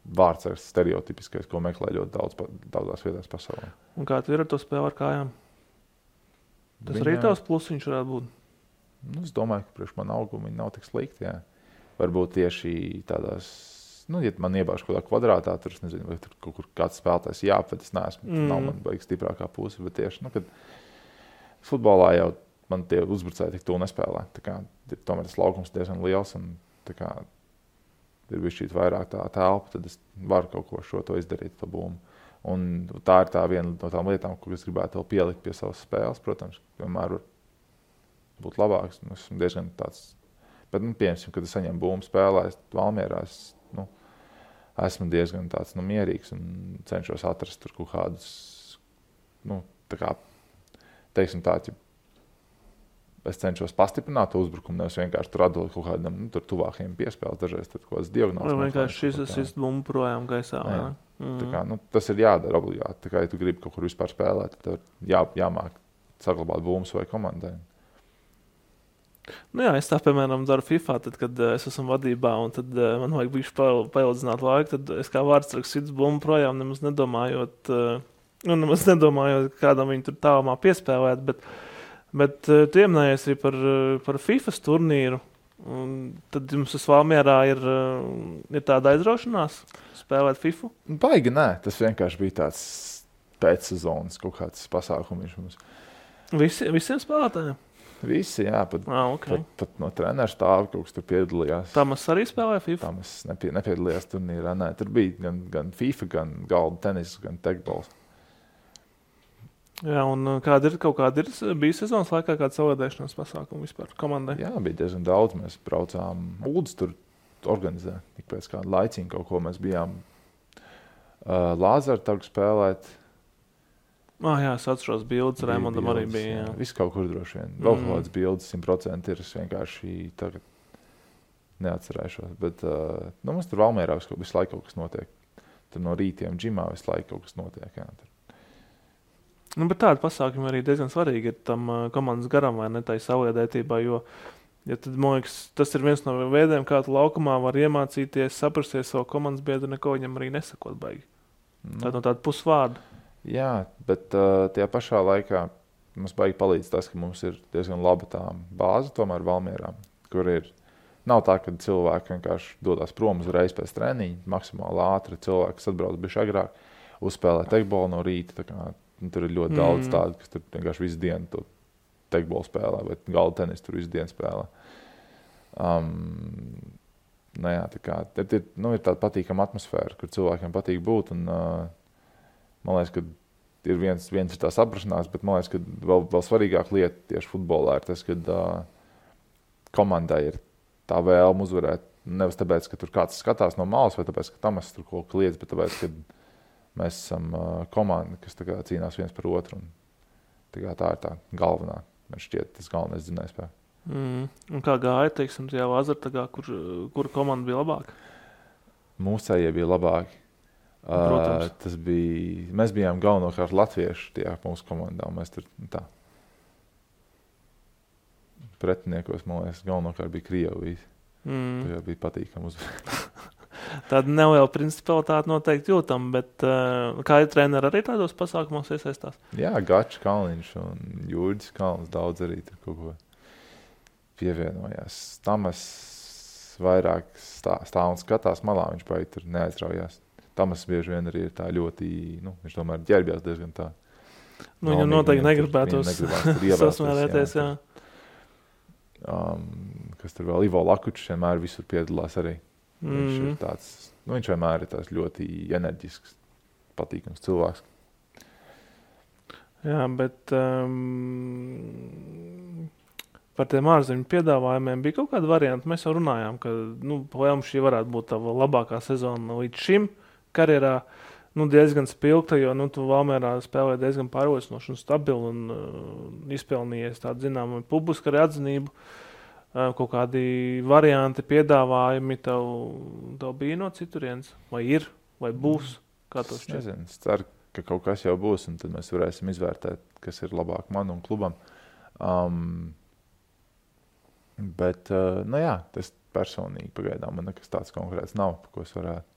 vārdsargs stereotipiskais, ko meklē ļoti daudzās vietās pasaulē. Un kā tu ir ar to spēli ar kājām? Tas arī tavs plusiņš varētu būt? Es domāju, ka priekš man augumi viņi nav tik slikti, jā. Varbūt tieši tādās, ja man iebāž kaut kādā kvadrātā, tur es nezinu, vai tur kaut kur kāds spēlētājs jāapved, es neesmu, nav man baigi stiprākā puse, bet tieši, kad futbolā jau man tie uzbrucēji tik to nespēlē. Tomēr tas laukums diezgan liels un ir bišķīt vairāk tā telpa, tad es varu kaut ko šo to izdarīt, to bumbu. Un tā ir tā viena no tām lietām, ko es gribētu vēl pielikt pie savas spēles, protams, vienmēr var būt labāks. Esmu diezgan tāds, bet, piemēram, kad es saņemu bumbu spēlēs Valmierā, esmu diezgan tāds, mierīgs un cenšos atrast tur kaut kādus, teiksim tā, es cenšos pastiprināt to uzbrukumu, nevis vienkārši tur atdot kaut kādam tur tuvākajiem piespēles, dažreiz tad kaut kāds diagonāls. Vai vienkārši šis bumbu projām gaisā. Tas ir jādara obligāti. Ja tu gribi kaut kur vispār spēlēt, tad jāmāk saglabāt bumbas vai komandai. Nu jā, es tā, piemēram, daru FIFA, tad, kad es esmu vadībā, un tad man vajag bišķi paildzināt laiku, tad es kā vārdsargs sits bumbu projām, nemaz nedomājot, kādam viņu tur tālumā piespēlēt, bet tu ieminējies arī par FIFA turnīru, un tad jums tas Valmierā ir tāda aizraušanās spēlēt FIFA? Baigi, nē, tas vienkārši bija tāds pēcsezonas kaut kāds pasākums mums. Visiem spēlētājiem? Visi, jā, Okay. Pat no treneru stāva kaut kas tur piedalījās. Tamas arī spēlēja FIFA? Tamas nepiedalījās turnīrā, nē, tur bija gan FIFA, gan galda tenis, gan tekbols. Jā, un kaut kāda bija sezonas laikā kāda savādēšanās pasākuma vispār komandai? Jā, bija diezgan daudz. Mēs braucām Uldis tur organizē. Ik pēc kāda laiciņa kaut ko mēs bijām Lāzara targu spēlēt. Jā, es atceros bildes, Raimondam arī bija. Jā. Viss kaut kur droši vien. Vēl kaut kādas bildes 100% ir. Es vienkārši tagad neatcerēšos. Bet mums tur Valmierā visu laiku kaut kas notiek. Tur no rītiem džimā visu laiku kaut kas notiek. Jā, tur. Bet tādi pasākumi arī diezgan svarīgi ir tam komandas garam vai ne tai savliedētībā, jo tad, man liekas, tas ir viens no veidiem, kā tu laukumā var iemācīties, saprasties savu komandas biedru, neko viņam arī nesakot baigi. Tā no tāda pusvārda. Jā, bet tajā pašā laikā mums baigi palīdz tas, ka mums ir diezgan laba tā bāze tomēr Valmierā, kur nav tā, ka cilvēki vienkārši dodās prom uzreiz pēc treniņa, maksimāli ātri cilvēks atbrauc bišķi agrāk, uzspēlē tekbolu no rīta, tā kā tur ir ļoti daudz tādu, kas tur vienkārši visu dienu to tekbolu spēlē, bet galda tenis tur visu dienu spēlē. Jā, tā kā, ir tāda patīkama atmosfēra, kur cilvēkiem patīk būt, un man liekas, ka ir viens ir tā saprašanās, bet man liekas, ka vēl svarīgāk lieta tieši futbolā ir tas, ka komandai ir tā vēlme uzvarēt, nevis tāpēc, ka tur kāds skatās no malas, vai tāpēc, ka Tamas tur kaut ko liedz, bet tāpēc, ka mēs esam komanda, kas tā kā cīnās viens par otru. Tā ir tā galvenā, man šķiet, tas galvenais dzinējspēks. Un kā gāja, teiksim, tajā Lāzartagā, kura komanda bija labāka? Mūsējie bija labāki. Mēs bijām galvenokārt latvieši tajā mūsu komandā. Mēs tur tā. Pretiniekos, man liekas, galvenokārt bija Krievijas. Tā bija patīkami uzvarēt. Tāda neliela principalitāte noteikti jūtam, bet kā ir treneri arī tādos pasākumos iesaistās? Jā, Gačs Kalniņš un Jūrģis Kalns daudz arī tur kaut ko pievienojās. Tamas vairāk stāv un skatās malā, viņš baigi tur neaizraujās. Tamas bieži vien arī ir tā ļoti, viņš tomēr ģērbjās diezgan tā. Viņam noteikti negribētos sasmērēties, jā. Kas tur vēl, Ivo Lakučs vienmēr visur piedalās arī. Viņš ir tāds, viņš vienmēr ir tāds ļoti enerģisks, patīkams cilvēks. Jā, bet par tiem ārzemju piedāvājumiem bija kaut kāda varianta. Mēs jau runājām, ka Lēm šī varētu būt tava labākā sezona līdz šim karjerā. Diezgan spilgta, jo tu Valmierā spēlē diezgan pārliecinoši un stabili un izpelnījies tādu zināmu publisku arī atzinību. Kaut kādi varianti, piedāvājumi tev bija no citurienes? Vai ir, vai būs? Kā to šķiet? Nezinu, es ceru, ka kaut kas jau būs, un tad mēs varēsim izvērtēt, kas ir labāk man un klubam. Bet, jā, tas personīgi pagaidām man nekas tāds konkrēts nav, par ko es varētu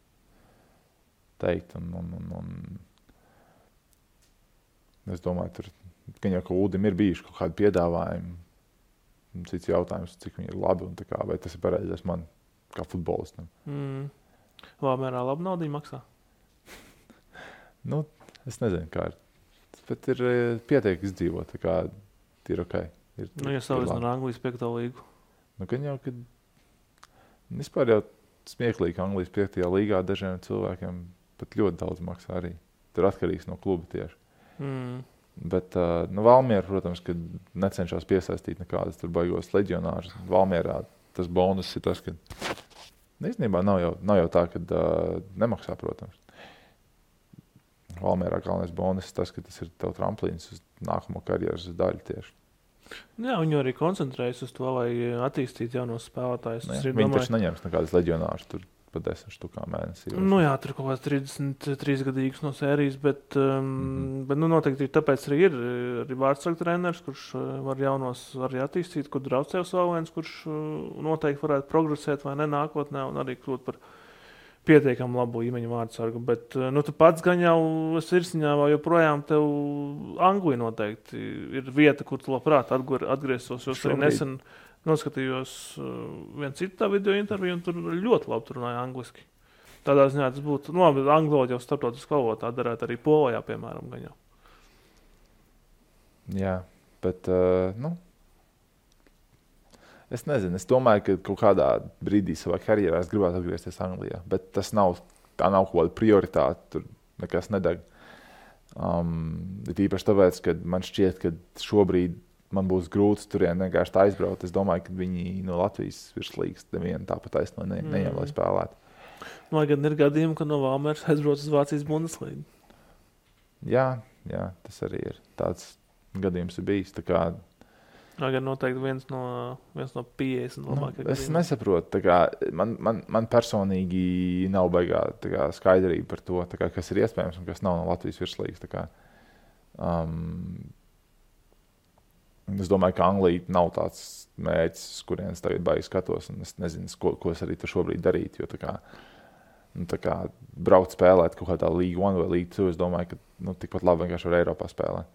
teikt. Un es domāju, tur, ka jau Uldim ir bijuši kaut kādi piedāvājumi. Cits jautājums, cik viņi ir labi un tā kā, vai tas ir pareizais man kā futbolistam. Valmierā labi naudiņu maksā? Es nezinu, kā ir. Bet ir pietiek izdzīvot, tā kā ir ok. Ja salīdzinām ar Anglijas 5. līgu. Gan jau, kad vispār jau smieklīgi Anglijas 5. līgā dažiem cilvēkiem pat ļoti daudz maksā arī. Tur atkarīgs no kluba tieši. Bet Valmiera, protams, kad necenšas piesaistīt nekādas tur baigos leģionārus. Valmierā tas bonus ir tas, ka īstenībā nav jau tā, ka nemaksā, protams. Valmierā galvenais bonus ir tas, ka tas ir tev tramplīns uz nākamo karjeras daļu tieši. Jā, viņi arī koncentrējas uz to, lai attīstītu jaunos spēlētājus. Viņi taču neņems nekādas leģionārus tur pa 10 štukām mēnesī. Nu jā, tur kaut kāds 33 gadīgs no sērijas, bet noteikti tāpēc arī ir arī vārdsargu treneris, kurš var jaunos arī attīstīt, kur Draucevs vēl viens, kurš noteikti varētu progresēt vai ne nākotnē un arī kļūt par pietiekami labu līmeņu vārdsargu. Bet tu pats gan jau sirsniņā vēl joprojām tev Anglija noteikti ir vieta, kur tu labprāt atgrieztos, jo arī nesen noskatījos vienu citu tā video interviju, un tur ļoti labi tur runāja angliski. Tādā ziņā tas būtu, angloļi jau starptautiski valodā darētu arī Polijā, piemēram, gan jau. Jā, bet, es nezinu, es domāju, ka kaut kādā brīdī savā karjerā es gribētu atgriezties Anglijā, bet tā nav kaut kāda prioritāte, tur nekas nedeg. Īpaši tāpēc, ka man šķiet, ka šobrīd man būs grūti turien vienkārši aizbraukt. Es domāju, ka viņi no Latvijas virslīgas nevienu tāpat taisno neņem, lai spēlētu. Lai gan ir gadījumi, ka no Valmieras aizbrauc uz Vācijas Bundeslīgu. Jā, tas arī ir. Tāds gadījums ir bijis. Tā kā Lai gan noteikti viens no 50 labākajiem. Es nesaprotu. Tā kā man personīgi nav baigā skaidrība par to, tā kā, kas ir iespējams un kas nav no Latvijas virslīgas. Tā kā, es domāju, ka Anglija nav tāds mērķis, kurienes tagad baigi skatos, un es nezinu, ko es arī tur šobrīd darītu, jo tā kā braukt spēlēt kaut kādā League 1 vai League 2, es domāju, ka tikpat labi vienkārši var Eiropā spēlēt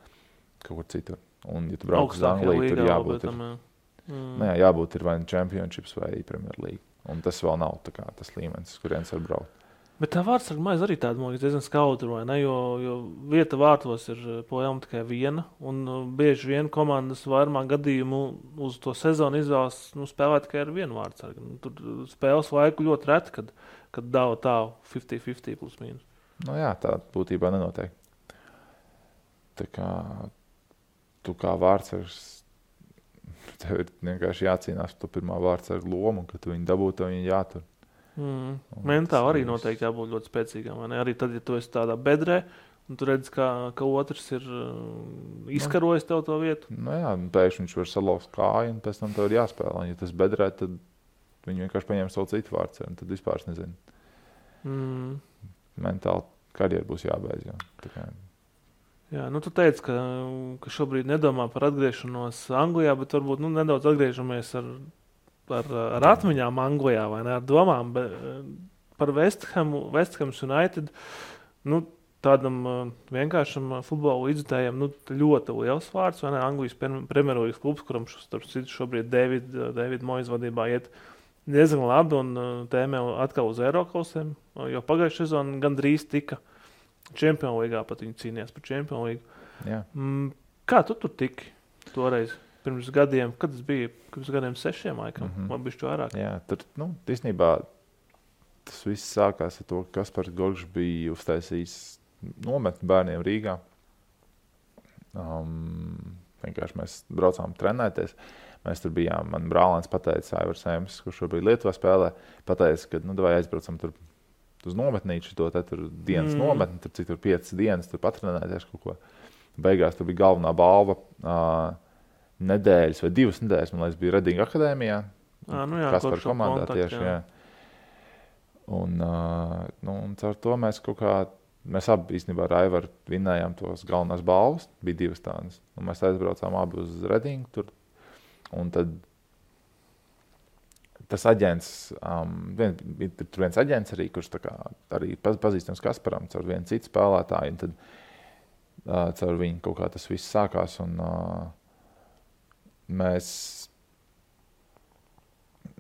kaut kur citur. Un, ja tu brauc uz Angliju, tur jābūt ir vai Championships vai Premier League. Un tas vēl nav tā kā tas līmenis, kurienes var braukt. Bet tā vārdsarga maize arī tāda diezgan skaudra, vai ne? Jo vieta vārtos ir projām tikai viena, un bieži vien komandas vairumā gadījumu uz to sezonu izvēlas spēlēt tikai ar vienu vārdsargu. Tur spēles laiku ļoti reti, kad dāva tā 50-50 plus mīnus. Jā, tā būtībā nenotiek. Tā kā tu kā vārdsargs, tev ir vienkārši jācīnās par to pirmā vārdsarga lomu, un kad tu viņu dabūtu, tev viņu jātur. Mentāli arī noteikti jābūt ļoti spēcīgām. Arī tad, ja tu esi tādā bedrē, un tu redzi, ka otrs ir izkarojis tev to vietu. Pēkšņi viņš var salauzt kāju, un pēc tam tev ir jāspēlē. Ja tas bedrē, tad viņi vienkārši paņem savu citu vārdsargu, un tad vispār nezinu. Mentāli karjeru būs jābeidz. Jā, tu teici, ka šobrīd nedomā par atgriešanos Anglijā, bet varbūt nedaudz atgriežamies ar atmiņām Anglijā, vai ne, ar domām par West Ham United, tādam vienkāršam futbola līdzjutējam, ļoti liels vārds, vai ne, Anglijas Premjerlīgas klubs, kuram šobrīd David Moyes vadībā iet diezgan labi un tēmē atkal uz Eirokausiem, jo pagājušajā sezonā gandrīz tika Champions Līgā, pat viņi cīnījās par Champions Līgu. Jā. Kā tu tur tiki toreiz? Pirms gadiem, kad tas bija? Pirms gadiem 6 laikam, vai bišķi vairāk? Jā, tur, īstenībā tas viss sākās ar to, ka Kaspars Gorgš bija uztaisījis nometni bērniem Rīgā. Vienkārši mēs braucām trenēties. Mēs tur bijām, man brālēns pateica, Aivars Sēms, kurš šobrīd Lietuvā spēlē, pateica, ka vai aizbraucam tur uz nometnīšu, tur dienas nometni, tur cik tur 5 dienas, tur patrenēties kaut ko. Beigās tur bija galvenā balva nedēļas vai 2 nedēļas, man liekas, bija Redinga akadēmijā. Kaspar komandā tieši, jā. Un caur to mēs mēs abi īstenībā ar Aivaru vinnējām tos galvenās balvas, bija 2 tādas. Un mēs aizbraucām abi uz Redingu tur. Un tad tas aģents, tur viens aģents arī, kurš arī pazīstams Kasparam caur vienu citu spēlētāju, un tad caur viņu kaut kā tas viss sākās, un mēs,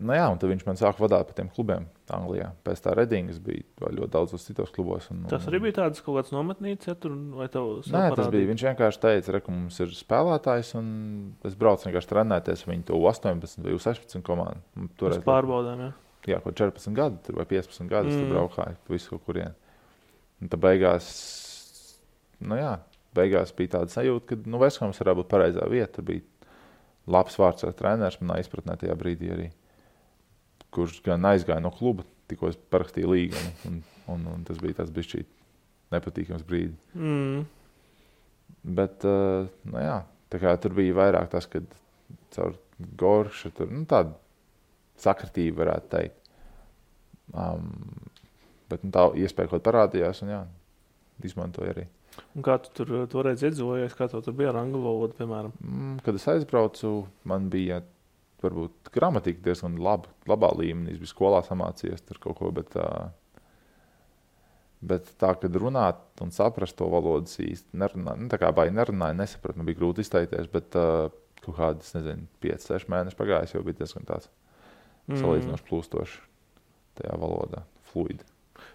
un tad viņš man sāka vadāt pa tiem klubiem Anglijā. Pēc tā Redingas bija ļoti daudzos citos klubos. Tas arī bija tāds kaut kāds nometnīts, ja tur, vai tev Nē, tas bija, viņš vienkārši teica, ka mums ir spēlētājs, un es braucu vienkārši trenēties viņu to 18 vai 16 komandu. Mēs pārbaudām, jā. Jā, kaut 14 gadi vai 15 gadi, tur braukāju, visu kaut kurien. Un tad beigās bija tāda sajūta, ka West Hams varētu būt pareizā vieta. Tur bija labs vārds ar treneris, manā izpratnē tajā brīdī arī, kurš gan aizgāja no kluba, tikko es parakstīju līgumu, un tas bija tāds bišķīt nepatīkams brīdi. Bet, tā kā tur bija vairāk tas, kad caur Gorša tur, tāda sakritība varētu teikt. Bet tā iespēja kaut parādījās, un jā, izmantoju arī. Un kā tu tur toreiz iedzīvojies, kā tu tur bija ar angļu valodu, piemēram? Kad es aizbraucu, man bija varbūt gramatika diezgan labā līmenī. Es biju skolā samācījies tur kaut ko, bet tā, kad runāt un saprast to valodas īsti nerunāju, tā kā baigi nerunāju, nesapratu, man bija grūti izteikties, bet kaut kādas, 5-6 mēneši pagājis, jau bija diezgan tāds salīdzinoši plūstoši tajā valodā, fluidi.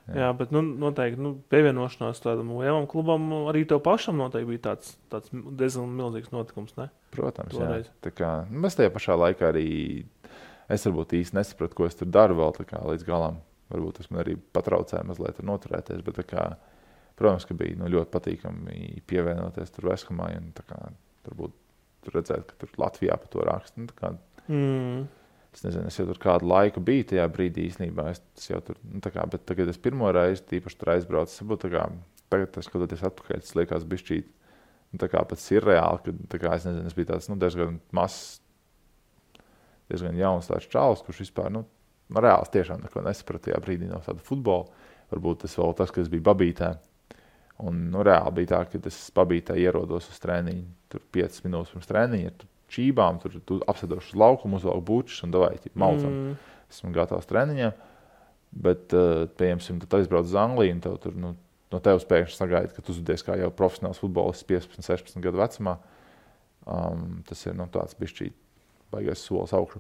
Jā, bet noteikti pievienošanās tādam lielam klubam arī tev pašam noteikti bija tāds diezgan milzīgs notikums, ne? Protams, toreiz. Jā. Tā kā, mēs tajā pašā laikā arī, es varbūt īsti nesapratu, ko es tur daru vēl tā kā līdz galam. Varbūt tas man arī patraucēja mazliet tur noturēties, bet tā kā, protams, ka bija ļoti patīkami pievienoties tur Veskamai un tā kā, varbūt tur redzēt, ka tur Latvijā pa to raksta. Tā kā, es nezinu, es jau tur kādu laiku biju tajā brīdī īstenībā, es jau tur, tā kā, bet tagad es pirmo reizi tīpaši tur aizbraucu, tā kā, tagad skatoties atpakaļ, tas liekas bišķīt, tā kā pats ir reāli, kad, tā kā, es nezinu, es biju tāds, diezgan mazs, diezgan jauns tāds čalis, kurš vispār, reāls tiešām neko nesapratu tajā brīdī no tāda futbola, varbūt tas vēl tas, ka es biju Babītē, un, reāli bija tā, ka es Babītē ierodos uz trēniņu, tur 5 minūtes pirms trēniņa, čībām, tur apsēdošu uz laukumu, uzvalku bučus un davai, maucam. Esmu gatavs treniņiem, bet, pieņemsim, tad aizbrauc uz Angliju un tev tur, no tevis pēkšņi sagaida, ka tu uzvedies kā jau profesionāls futbolists 15-16 gadu vecumā. Tas ir, tāds bišķīt baigais solis augšu.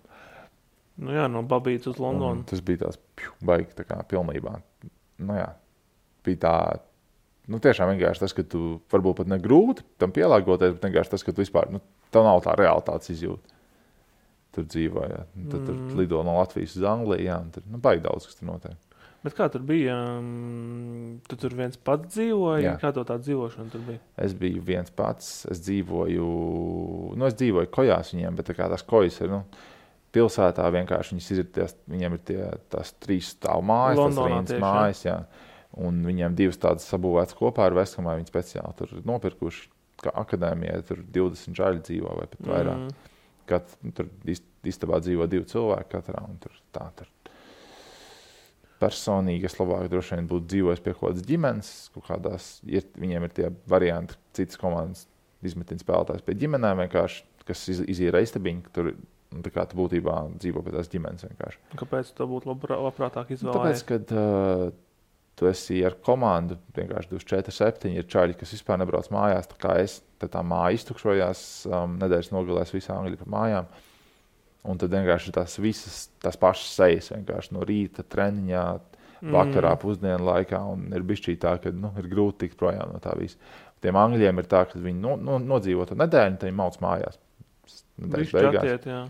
Jā, no Babītas uz Londonu. Tas bija tās baigi tā kā pilnībā. Bija tā, tiešām vienkārši tas, ka tu varbūt pat negrūti tam pielāgoties, bet vienkārši tas, ka tu vispār, tev nav tā realitātes izjūta. Tur dzīvoja. Tad tur lido no Latvijas uz Angliju, un tur baigi daudz, kas tur notiek. Bet kā tur bija? Tu tur viens pats dzīvoji? Jā. Kā tā dzīvošana tur bija? Es biju viens pats. Es dzīvoju kojās viņiem, bet tā kā tās kojas ir, pilsētā vienkārši viņiem ir tās 3 stāvu mājas, Londonā tas Rīnas mājas, jā. Un viņiem 2 tādas sabūvētas kopā ar Veskamai, viņi speciāli tur nopirkuši, kā akadēmijā, tur 20 žaļi dzīvo vai pat vairāk. Tur istabā dzīvo 2 cilvēki katrā, un tur personīgi es labāk droši vien būtu dzīvojis pie kaut kādas ģimenes, kaut kādās, viņiem ir tie varianti, citas komandas izmetina spēlētājs pie ģimenēm vienkārši, kas izīra istabiņu, ka tur, tā kā tu būtībā dzīvo pie tās ģimenes vienkārši. Kāpēc tu būtu labprātāk izvēlējies? Tāpēc, kad tu esi ar komandu, vienkārši 24/7 ir čaļi, kas vispār nebrauc mājās, tā kā es, tad tā māja iztukšojās, nedēļas nogalēs visā Angļu pa mājām, un tad vienkārši tās pašas sejas, vienkārši no rīta treniņā, vakarā, pusdienu laikā, un ir bišķī tā, ka, ir grūti tikt projām no tā visa. Tiem Angļiem ir tā, ka viņi nodzīvo to nedēļu, tad viņi mauc mājās. Višķi atiet, jā.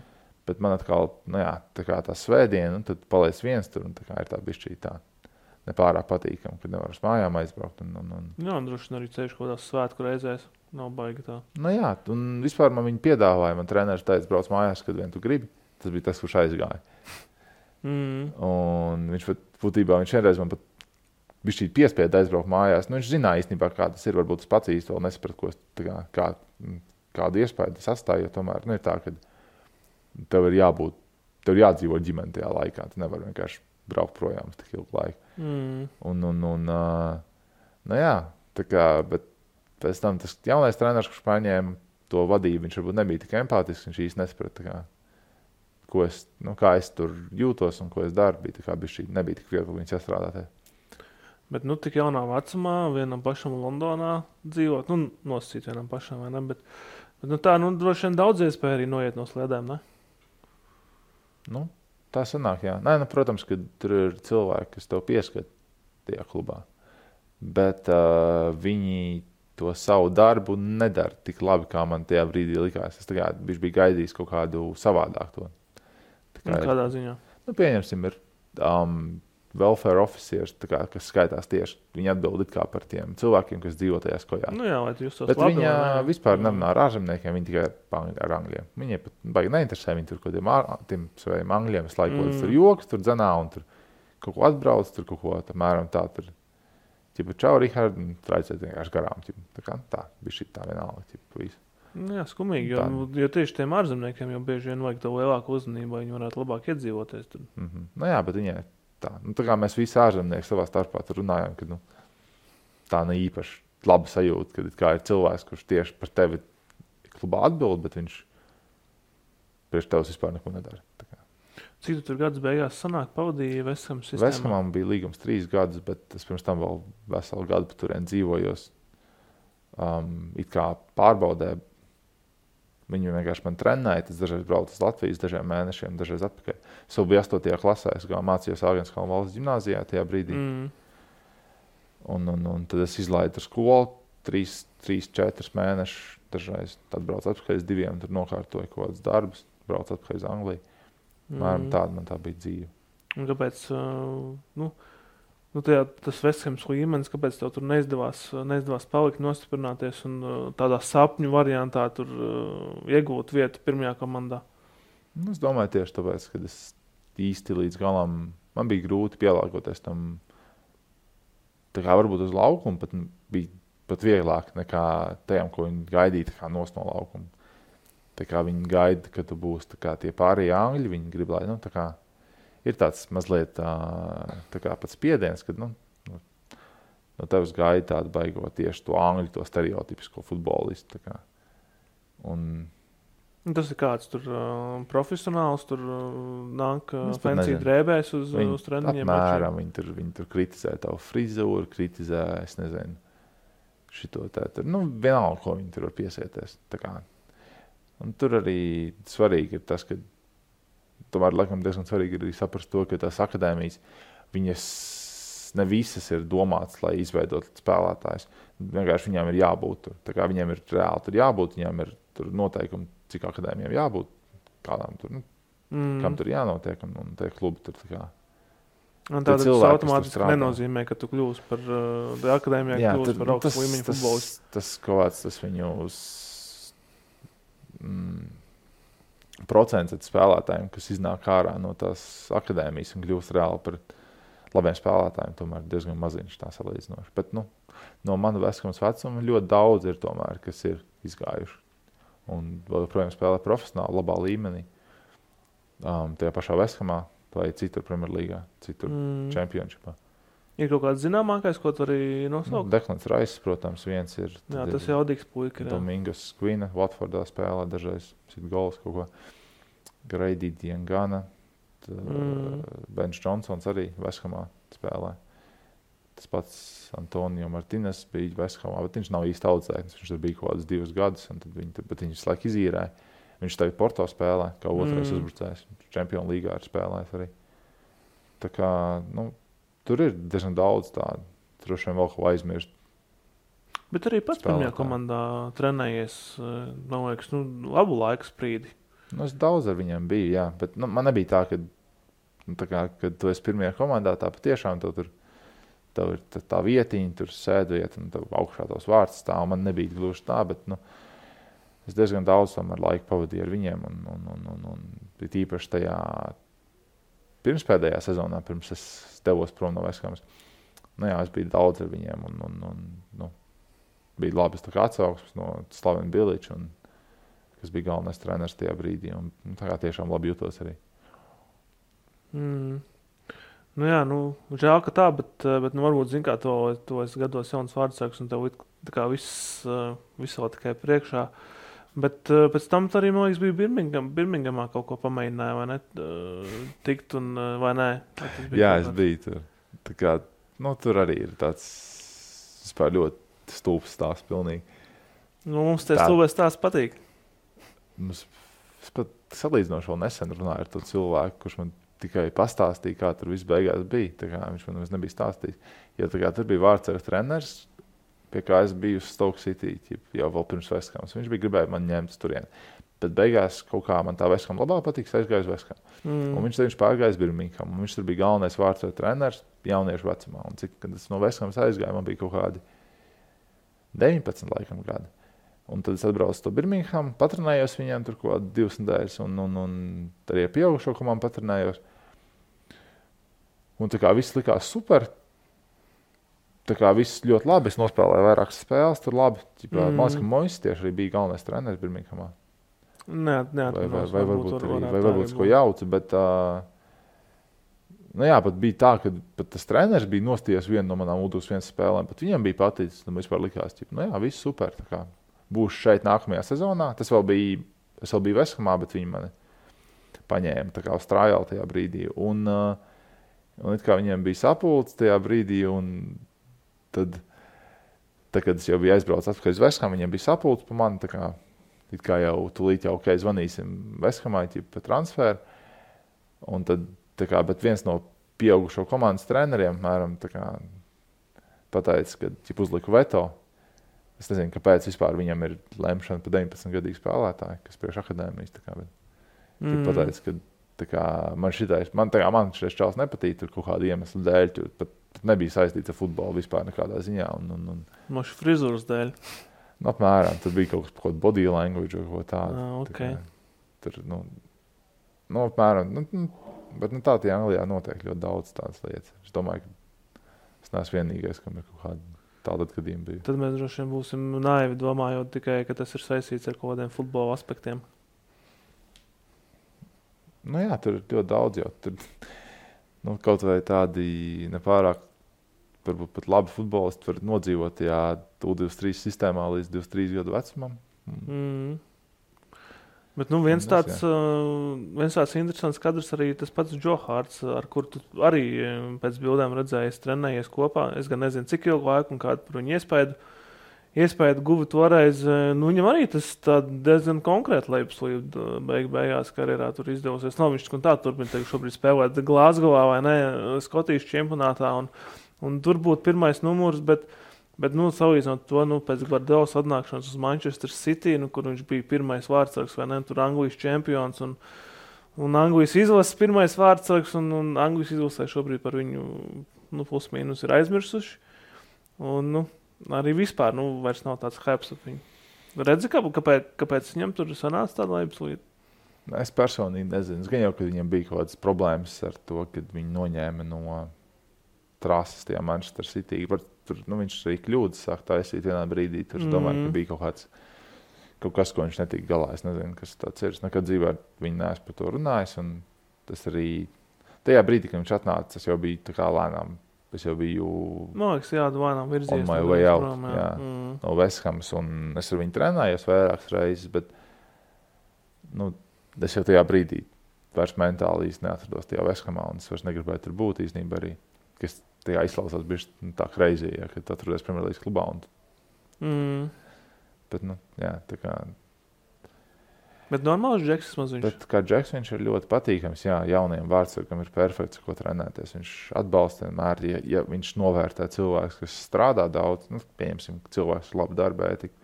Bet man atkal, tā kā tā svētdiena, un tad paliec viens tur, un tā kā ir tā bišķī tā. Nepārāk patīkam, kad nevar uz mājām aizbraukt. Jā, droši vien arī ceļš kaut kādās svētku reizēs. Nav baigi tā. Jā, un vispār man viņi piedāvāja. Man treneris teica, brauc mājās, kad vien tu gribi. Tas bija tas, kurš aizgāja. Un viņš vienreiz man pat bišķīt piespieda aizbraukt mājās. Viņš zināja īstenībā, kā tas ir. Varbūt tas pats īsti vēl nesaprat, kādu iespēju tas atstāja. Jo tomēr ir tā, ka tev ir jādzīvo ģimene tajā laikā. Tu nevar vienkārši braukt projām uz tik ilgu laiku. Tā kā, bet pēc tam tas jaunais treneris, kurš paņēma to vadību, viņš varbūt nebija tik empātisks, viņš īsti nesaprata, kā es tur jūtos un ko es daru, nebija tik viegli viņus sastrādāt. Bet, tik jaunā vecumā vienam pašam Londonā dzīvot, nosacīt vienam pašam, vai ne? Bet tā, droši vien daudz iespēja arī noiet no sliedēm, ne? Tā sanāk, jā. Protams, ka tur ir cilvēki, kas tev pieskat tajā klubā. Bet viņi to savu darbu nedara tik labi, kā man tajā brīdī likās. Es biju gaidījis kaut kādu savādāku to. Kādā ziņā? Pieņemsim, ir welfare officers, kas skaitās tieši, viņi atbild it kā par tiem cilvēkiem, kas dzīvo tajās kojās. Jā, lai tu justos bet labi. Bet viņa vispār nerunā ar ārzemniekiem, viņi tikai ar angļiem. Viņiem pat baigi neinteresē, viņi tur kaut kādiem saviem angļiem visu laiku tur joks, tur dzenā un tur kaut ko atbrauc, tur kaut ko tamēram tā tur. Čau, Rihard, un traicēt vienkārši garām. Tā bija šī tā vienalga. Jā, skumīgi, jo tieši tiem ārzemniekiem jau bieži vien vajag to lielāku uzmanību, lai viņi varētu labāk iedzīvoties. Tad. Jā, bet viņai tā. Tā kā mēs visi ārzemnieki savā starpā tur runājam, ka tā ne īpaši laba sajūta, kad kā ir cilvēks, kurš tieši par tevi klubā atbild, bet viņš priekš tevs vispār neko nedara. Cik tu tur gadus beigās sanāk pavadīja Vestham sistēmā? Vesthamam bija līgums 3 gadus, bet es pirms tam vēl veselu gadu pa turien dzīvojos. It kā pārbaudē. Viņi vienkārši man trenēja, tas dažreiz braucu uz Latvijas dažiem mēnešiem, dažreiz atpakaļ. Es vēl biju 8. klasē, es mācījos Āgenskalna valsts ģimnāzijā tajā brīdī. Un tad es izlaidu ar skolu 3-4 mēnešus, dažreiz tad braucu atpakaļ uz 2, tur nokārtoju kaut kādas darbus, braucu atpakaļ uz Angliju. Tāda man tā bija dzīve. Un kāpēc, tas Vesthams līmenis, kāpēc tev tur neizdevās palikt, nostiprināties un tādā sapņu variantā tur iegūt vietu pirmajā komandā? Es domāju tieši tāpēc, ka es īsti līdz galam, man bija grūti pielāgoties tam, tā kā varbūt uz laukumu, bija pat vieglāk nekā tajām, ko viņi gaidīja tā kā nost no laukuma. Tā kā viņi gaida, ka tu būsi tā kā tie pārējie angļi, viņi grib, lai, tā kā ir tāds mazliet tā kā pats spiediens, kad no tevis gaida tādu baigot tieši to angļu, to stereotipisko futbolistu. Tā kā. Tas ir kāds tur profesionāls, tur nāk pensiju drēbēs uz treniņiem? Apmēram, viņi tur kritizē tavu frizūru, kritizē, es nezinu, šito tur. Vienalga, ko viņi tur var piesieties. Tā kā. Un tur arī svarīgi ir tas, ka tomēr, laikam, diezgan svarīgi ir saprast to, ka tās akadēmijas, viņas ne visas ir domātas, lai izveidot spēlētājus. Vienkārši viņām ir jābūt tur. Tā kā viņiem ir reāli tur jābūt, viņām ir tur noteikumi, cik akadēmijām jābūt, kādām tur, kam tur jānotiek, un tie klubi tur tā kā. Un tātad tas automātiski nenozīmē, ka tu kļūsi par akadēmijā, kļūsi par augstu līmeņu futbolistu. Tas kaut kāds, tas viņu procents spēlētājiem, kas iznāk ārā no tās akadēmijas un kļūst reāli par labiem spēlētājiem, tomēr diezgan maziņš tā salīdzinoši. Bet no mana Vesthams vecuma ļoti daudz ir tomēr, kas ir izgājuši. Un vēl joprojām spēlē profesionāli, labā līmenī. Tajā pašā Vesthamā vai citur Premjerlīgā, citur Championshipā. Ir kaut kāds zināmākais, ko tu arī nosaukt? Deklans Rais, protams, viens ir. Jā, tas jaudīgs puika. Domingos Quina, Watfordā spēlē, dažreiz sit gols kaut ko. Grady Diangana, Benš Johnsons arī Vesthamā spēlē. Tas pats Antonio Martinez bija Vesthamā, bet viņš nav īsti audzēknis. Viņš tur bija kaut kādus 2 gadus, bet viņš visu laiku izīrēja. Viņš tagad Porto spēlē, kā otrais uzbrucējs. Čempionu līgā ir spēlējis arī. Tā kā, tur ir diezgan daudz tādu. Droši vien vēl ko aizmirst. Bet arī pats pirmajā komandā trenējies, man liekas, labu laiku sprīdi. Es daudz ar viņiem biju, jā. Bet man nebija tā, kad tu esi pirmajā komandā, tā patiešām tev ir tā vietiņa, tur sēdvieta un tev augšā tavs vārds stāv. Man nebija gluži tā, bet es diezgan daudz tomēr laiku pavadīju ar viņiem. Un īpaši tajā pirmspēdējā sezonā, pirms es devos prom no Vesthamas. Es biju daudz ar viņiem un bija labas tā kā atsauksmes no Slavena Biliča, kas bija galvenais treneris tajā brīdī. Un tā kā tiešām labi jutos arī. Žēl, ka tā, bet varbūt, zin kā, to es gados jauns vārdsāks un tev tā kā viss vēl tikai priekšā. Bet pēc tam arī, man liekas, bija Birmingamā kaut ko pamēģināja, vai ne? Tikt un vai nē? Jā, es biju tur. Tā kā, tur arī ir tāds vispār ļoti stulbs stāsts pilnīgi. Mums tie stulbēs stāsts patīk. Es pat salīdzinoši vēl nesen runāju ar to cilvēku, kurš man tikai pastāstīja, kā tur viss beigās bija. Tā kā viņš man nebija stāstījis. Jo tā kā tur bija vārdsargs treneris, pie kā es biju uz Stoke City, jau vēl pirms Vesthams. Viņš bija gribēja man ņemt turien. Bet beigās kaut kā man tā Vestham labāk patīk, aizgāju uz Vestham. Un viņš pārgājis Birmingham. Un viņš tur bija galvenais vārdsargs treneris jauniešu vecumā. Un kad es no Vesthams aizgāju, man bija kaut kādi 19 laikam gadi. Un tad es atbraucu to Birmingham, patrenējos viņiem tur kaut kādi 2 nedēļas un arī ar pieaugušo komandu patrenējos. Un tā kā viss likās super. Tā kā viss ļoti labi. Es nospēlēju vairākas spēles, tur labi. Man liekas, ka Moises tieši arī bija galvenais treneris Birminghamā. Vai varbūt ko jauca, bet Nu jā, pat bija tā, ka pat tas treneris bija nostījies vienu no manām U21 spēlēm, pat viņam bija paticis, un vispār likās, nu jā, viss super, tā kā būšu šeit nākamajā sezonā. Es vēl biju Vesthamā, bet viņi mani paņēma tā kā uz trājālu tajā brīdī, un it kā viņiem bija sapulcs tajā brīdī, un tad, kad es jau biju aizbraucis atpakaļ uz Vesthamu, viņiem bija sapulcs pa mani, tā kā it kā jau tūlīt jau, zvanīsim Vesthamai pa transferu, un tad, tā kā, bet viens no pieaugušo komandas treneriem, mēram, tā kā pateica, ka uzliku veto. Es nezinu, kāpēc vispār viņam ir lemšana pa 19-gadīgu spēlētāju, kas priekš akadēmijas, tā kā, bet pateica, ka tā kā, man šitais čals nepatīk tur kaut kādu iemeslu dēļ, tur pat nebija saistīts ar futbolu vispār nekādā ziņā. Moši frizūras dēļ? Nu, apmēram, tur bija kaut kas body language vai kaut tādu. Okay. Tā kā, tur, apmēram, bet tā Anglijā notiek ļoti daudz tādas lietas. Es domāju, ka es neesmu vienīgais, kam ir kaut kāda tāda gadījuma bija. Tad mēs droši vien būsim naivi domājot tikai, ka tas ir saistīts ar kaut kādiem futbola aspektiem. Nu jā, tur ir ļoti daudz jau. Tur, kaut vai tādi nepārāk, varbūt pat labi futbolisti var nodzīvot tajā U23 sistēmā līdz 23 gadu vecumam. Bet viens tāds interesants kadrs arī tas pats Joe Harts, ar kur tu arī pēc bildēm redzējies, trenējies kopā. Es gan nezinu, cik ilgu laiku un kādu par viņu iespēju guva toreiz. Viņam arī tas diezgan konkrēti lejupslīd beigās karjerā tur izdevusies. Nav viņš tā turpina šobrīd spēlēt Glasgowā vai ne, Skotijas čempionātā un tur būtu pirmais numurs, bet salīdzinot to, pēc Gvardiolas atnākšanas uz Manchester City, kur viņš bija pirmais vārdsargs, vai ne, tur Anglijas čempions un Anglijas izlases pirmais vārdsargs, un Anglijas izlasē šobrīd par viņu, plus mīnus ir aizmirsuši. Un, arī vispār, vairs nav tāds hypes ar viņu. Redzi, kāpēc viņam tur sanāca tāda lejupslīde? Es personīgi nezinu. Es gan jau, ka viņam bija kaut kādas problēmas ar to, kad viņi noņēma no trases tajā Manchester City. Tur, viņš arī kļūdas sāk taisīt vienā brīdī. Tur es domāju, ka bija kaut kas, ko viņš netika galā. Es nezinu, kas tāds ir. Es nekad dzīvē viņu neesmu par to runājis. Un tas arī tajā brīdī, kad viņš atnāca, es jau biju tā kā lēnām. Es jau biju lēnām virzies. On my way out, no Vesthamas. Un es ar viņu trenējos vairākas reizes, bet es jau tajā brīdī vairs mentāli īsti neatrados tajā Vesthamā. Un es vairs negribēju tur būt īstenībā arī. Kas tajā izklausās bišķi tā crazy, kad atrodies Premjerlīgas klubā. Bet, tā kā... Bet normāls Džeks maz viņš. Bet kā Džeks viņš ir ļoti patīkams, jauniem vārdsargam ir perfekts, ko trenēties. Viņš atbalsta vienmēr, ja viņš novērtē cilvēks, kas strādā daudz, pieņemsim, cilvēks ir labi darba ētika.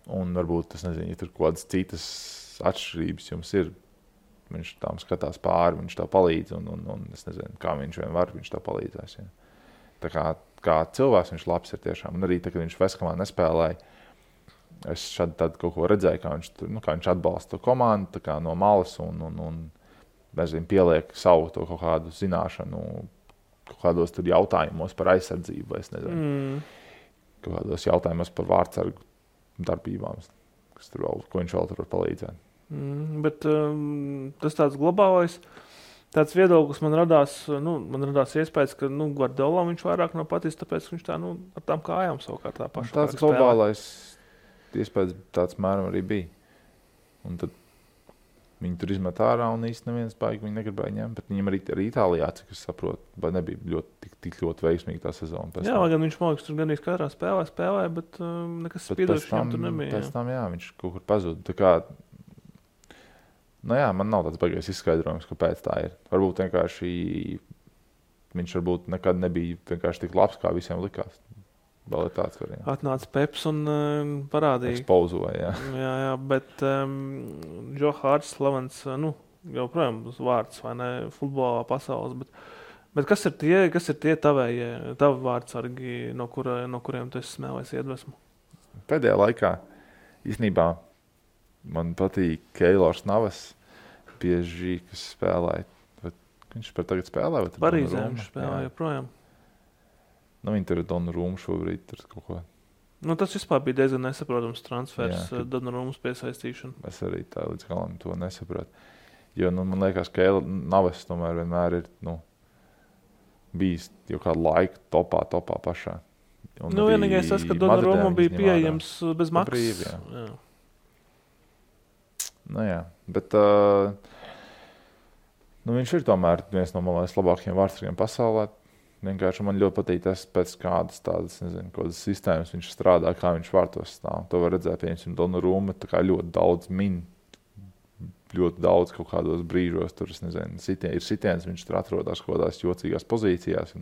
Un varbūt, es nezinu, ja tur kaut kādas citas atšķirības jums ir, viņš tām skatās pāri, viņš tā palīdz, un es nezinu, kā viņš vien var, viņš tā palīdzēs. Ja. Tā kā cilvēks viņš labs ir tiešām. Un arī tā, kad viņš Vesthamā nespēlēja, es šādi kaut ko redzēju, kā viņš atbalsta to komandu tā kā no malas un nezinu, pieliek savu to kaut kādu zināšanu, kaut kādos tur jautājumos par aizsardzību, vai es nezinu, kaut kādos jautājumos par vārdsargu darbībām, ko viņš vēl tur var palīdzēt. Bet tas tāds globālais tāds viedoklis man radās iespējas, ka Guardiola viņš vairāk nav patīc, tāpēc viņš tā ar tām kājām savukārt tā paša. Tāds globālais iespējas tāds mēram arī bija. Un tad viņi tur izmet ārā un īsti neviens baigi viņi negribēja ņemt, bet viņam arī Itālijā, cik es saprotu, nebija tik ļoti veiksmīgi tā sezona. Jā, gan viņš mākslinieks tur gan katrā spēlēja, bet nekas spīdošs viņam tur nebija. Pēc tam, viņš kaut kur pazuda. Tā kā, man nav tāds baigais izskaidrojums, kāpēc tā ir. Varbūt vienkārši viņš nekad nebija vienkārši tik labs, kā visiem likās. Vēl ir tāds variants. Atnāca Peps un parādīja. Ekspozoja, jā, bet Joe Harts slavens, joprojām vārds, vai ne, futbolā pasaules, bet kas ir tie tavi vārdsargi, no kuriem tu esi smēlēs iedvesmu? Pēdējā laikā, īstenībā, man patīk Keilors Navas bieži, kas spēlēja. Viņš tagad spēlē? Parīzē viņš spēlē joprojām. Viņi tur ir Donnarumma šobrīd tur kaut ko. Tas vispār bija diezgan nesaprotams transfers, Donnarummas piesaistīšana. Es arī tā līdz galam to nesapratu. Jo, man liekas, ka Navas tomēr vienmēr ir, bijis jau kādu laiku topā pašā. Vienīgais tas, ka Donnarumma bija pieejams bez maksas. Brīvi, jā. Bet viņš ir tomēr viens no labākajiem vārdsargiem pasaulē. Vienkārši man ļoti patīk tas, pēc kādas tādas, kādas sistēmas viņš strādā, kā viņš vārtos stāv. To var redzēt, piemēram, Donnarumma ļoti daudz ļoti daudz kaut kādos brīžos. Tur, ir sitiens, viņš tur atrodas kaut kādās jocīgās pozīcijās.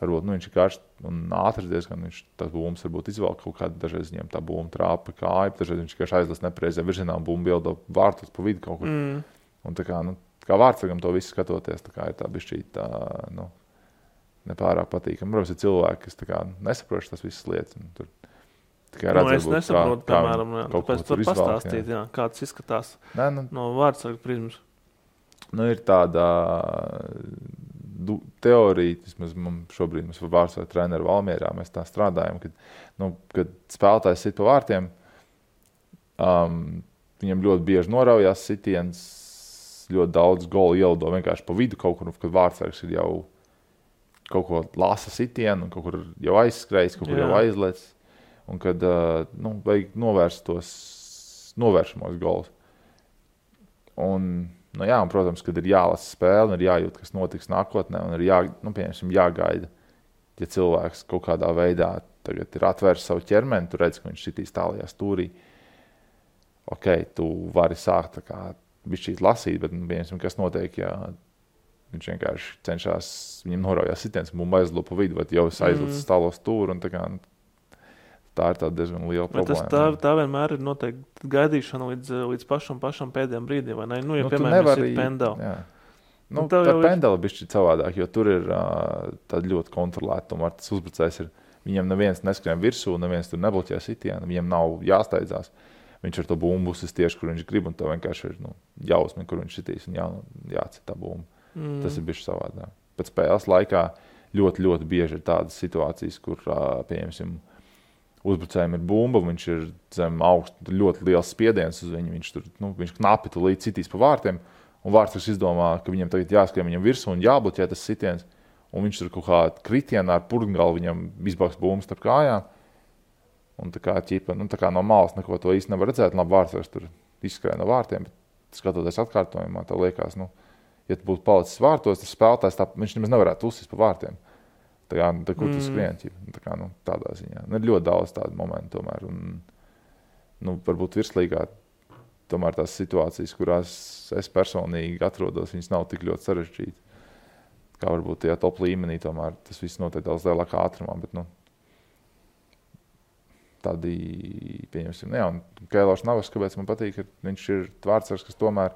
Varbūt viņš ir karsts un ātrs diezgan. Tas būms varbūt izvēl kaut kādu, dažreiz viņam tā būma trāpa kāju, dažreiz viņš vienkārši aizlas nepareizajā virzienā un būma bildo vārtus pa vidu kaut kur. Un kā vārdsargam to visu skatoties, tā kā ir tā bišķīt tā, nepārāk patīkami. Protams, ir cilvēki, kas nesaproš tas visas lietas. Es nesaprotu, piemēram, tāpēc tur pastāstīt, kā tas izskatās no vārdsarga prizmas. Ir tāda teorija, vismaz šobrīd mums vārdsarga treneru Valmierā, mēs tā strādājam, kad spēlētājs sit pa vārtiem, viņam ļoti bieži noraujās sitiens, ļoti daudz golu ielido vienkārši pa vidu kaut kur, kad vārdsargs ir jau kaut ko lasa sitienu, kaut kur jau aizskrējis, kaut kur jau aizlēc. Un kad vajag novērst tos novēršamos golus. Un, protams, kad ir jālasa spēle, un ir jājūt, kas notiks nākotnē, un ir jāgaida, ja cilvēks kaut kādā veidā tagad ir atvērs savu ķermeni, tu redz, ka viņš šitīs tālajā stūrī. Tu vari sākt tā kā bišķīt lasīt, bet, kas notiek, ja viņš vienkārši cenšas, viņam noraujās sitiens, un bumba aizlido pa vidu, vai jau aizlicis tālo stūru, un tā ir tāda diezgan liela problēma. Tā vienmēr ir noteikti gaidīšana līdz pašam pēdējiem brīdiem, vai ne? Ja, piemēram, ir pendeli. Tā pendeli bišķi savādāk, jo tur ir tāda ļoti kontrolēta. Tomēr tas uzbrucējs ir, viņam neviens neskrien virsū, neviens tur nebloķē sitienu, viņam nav jāsteidzās. Viņš ar to bumbu uzsist tieši, kur viņš grib, un to vienkārši ir jāuzmin, kur viņš sitīs, un jācīt tā bumba. Tas ir bišķi savādāk. Pēc spēles laikā ļoti, ļoti bieži ir tādas situācijas, kur, pieņemsim, uzbrucējiem ir bumba, viņš ir zem augstu, ļoti liels spiediens uz viņu, viņš knapi līdz citīs pa vārtiem, un vārtsargs izdomā, ka viņam tagad jāskrien viņam virsū un jābloķē tas sitiens, un viņš tur kaut kā kritienā ar purgalu viņam izbaks bumbas starp kājām, un tā kā no malas neko to īsti nevar redzēt, labi vārtsargs tur izskrēja no vārtiem, bet skatoties atkārtojumā, tā liekas, ja tu būtu palicis vārtos, tas spēlētājs, viņš nemaz nevarētu uzsist pa vārtiem. Kur tu skrien, tādā ziņā. Ir ļoti daudz tādu momentu tomēr. Un, varbūt virslīgā tomēr tās situācijas, kurās es personīgi atrodos, viņas nav tik ļoti sarežģītas. Kā varbūt tajā top līmenī tomēr tas viss notiek daudz lielākā ātrumā, bet tādi, pieņemsim, un Keilors Navas, kāpēc man patīk, ka viņš ir vārdsargs, kas tomēr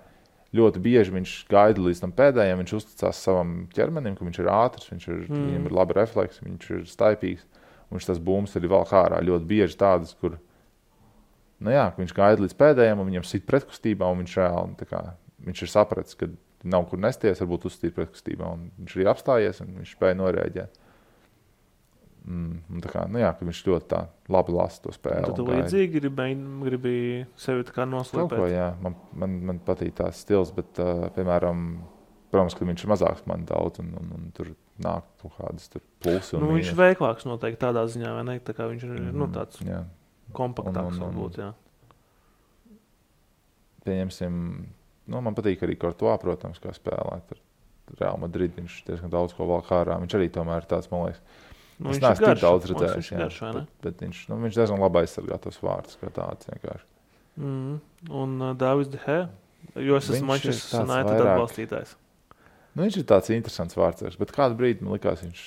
ļoti bieži viņš gaida līdz tam pēdējiem, viņš uzticās savam ķermenim, ka viņš ir ātrs, viņam ir labi refleksi, viņš ir staipīgs, un viņš tas bums arī vēl ārā ļoti bieži tādas, kur, ka viņš gaida līdz pēdējiem, un viņam sit pretkustībā, un viņš reāli, viņš ir sapratis, ka nav kur nesties, varbūt uzstīt pretkustībā, un viņš arī apstājies, un viņš spēja norēģēt. Ka viņš ļoti tā labi lasa to spēli. Tad tu līdzīgi gribi sevi tā kā noslēpēt? Kaut ko, man patīk tās stils, bet, piemēram, protams, ka viņš ir mazāks man daudz, un tur nāk kaut kādas plusi un viņš ir veiklāks noteikti tādā ziņā, vai ne? Tā kā viņš ir tāds kompaktāks varbūt, jā. Pieņemsim, man patīk arī Courtois, protams, kā spēlēt. Real Madrid viņš diezgan daudz ko vēl kārā. Viņš arī tomēr ir tāds, man liekas, es neesmu tik daudz redzējis, bet viņš diezgan labi aizsargā tos vārdus, kā tāds vienkārši. Un Davids De Gea, jo es esmu Manchester United atbalstītājs. Viņš ir tāds interesants vārdsargs, bet kādu brīdi man likās, viņš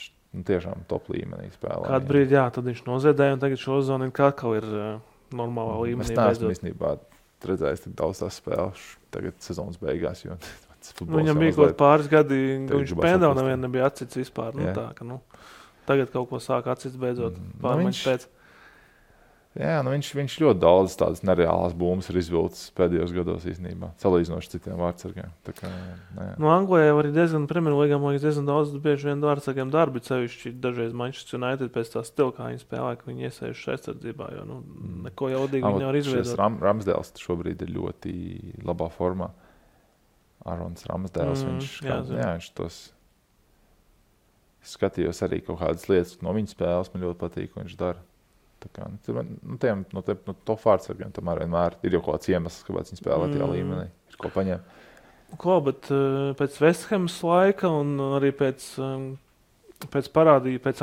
tiešām top līmenī spēlē. Kādu brīdi, tad viņš noziedēja, un tagad šo zonu atkal ir normālā līmenī. Es neesmu īstenībā redzējis tik daudz tās spēles tagad sezonas beigās, jo viņam bija kaut pāris gadi, ka viņš pendeli nevienu nebija atcits vispār. Tagad kaut ko sāk atcits beidzot pārmaiņas pēc. Jā, viņš ļoti daudz tādas nereālas bumbas ir izvilcis pēdējos gados īstenībā, salīdzinoši citiem vārdsargiem. Anglijā arī diezgan Premjerlīgā, man liekas, diezgan daudz bieži vien vārdsargiem darbi, sevišķi dažreiz Manchester United pēc tā stila, kā viņi spēlē, ka viņi iesējuši aizsardzībā, jo neko jaudīgi viņi nevar izveidot. Ramsdēls šobrīd ir ļoti labā formā. Arons Ramsdēls, viņš tos skatījos arī kaut kādas lietas no viņa spēles, man ļoti patīk, ko viņš dara. Tā kā, no top vārdsargiem tomēr vienmēr ir jau kaut kāds iemesls, kāpēc viņi spēlē tajā līmenī, ir ko paņemt. Bet pēc West Hamas laika un arī pēc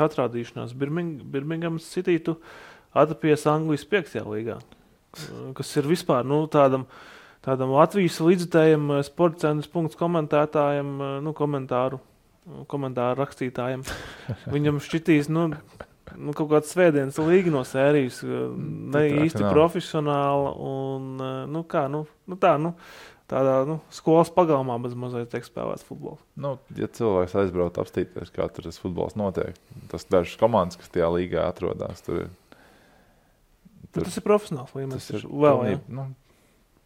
atrādīšanās Birminghamas City tu atrapies Anglijas 5. līgā, kas ir vispār tādam Latvijas līdzutējiem Sporta centrs komentētājiem, komentāru rakstītājiem. Viņam šķitīs, kaut kāds svētdienas līga no sērijas, ne īsti profesionāla un, tādā skolas pagalmā bez mazliet tiek spēlēts futbols. Ja cilvēks aizbrauc apstīties, kā tur tas futbols notiek, tas dažas komandas, kas tajā līgā atrodās, tur tas ir profesionāls līmenis.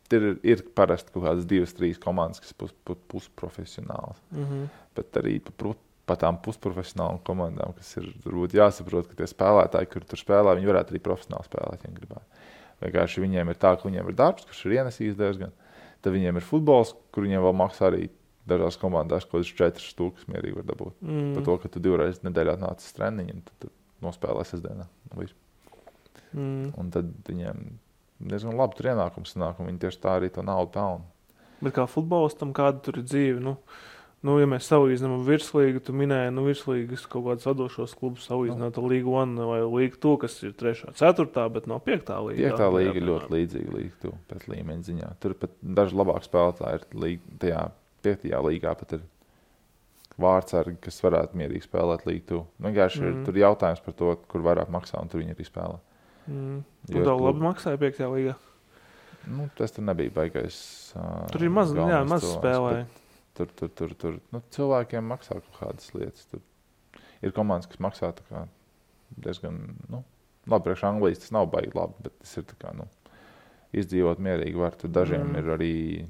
Ir parasti kaut kādas 2-3 komandas, kas pusprofesionāls. Bet arī pa tām pusprofesionālām komandām, kas ir varbūt jāsaprot, ka tie spēlētāji, kur tur spēlē, viņi varētu arī profesionāli spēlēt, ja gribētu. Vienkārši viņiem ir tā, ka viņiem ir darbs, kurš ir ienesījis diezgan. Tad viņiem ir futbols, kur viņiem vēl maksā arī dažās komandās, ko 4 stūkas mierīgi var dabūt. Par to, ka tu 2 reizes nedēļā nācis treniņu, tad nospēlē sestdienā. Un tad viņiem diezgan labi tur ienākums sanāk, un viņi tieši tā arī to naudu pelna. Bet kā futbolistam, kāda tur ir dzīve? Ja mēs salīdzinām virslīgu, tu minēji, virslīgas kaut kādas vadošos klubus salīdzināt ar Līgu 1 vai Līgu 2, kas ir 3., 4., bet nav 5. līga. 5. līga ir ļoti līdzīga Līgu 2 pēc līmeņa ziņā. Tur pat daži labāk spēlētāji ir tajā 5. līgā, pat ir vārdsargi, kas varētu mierīgi spēlēt Līgu 2. Vienkārši ir tur jautājums par to, kur vairāk maksā, un tur viņi arī spēlē. Un daudz labi maksāja 5. līgā? Tas tur nebija baigais. Tur ir maz spēlēja. Tur cilvēkiem maksā kaut kādas lietas. Tur ir komandas, kas maksā tā kā diezgan, labi, priekš Anglijas tas nav baigi labi, bet tas ir tā kā, izdzīvot mierīgi var. Tur dažiem ir arī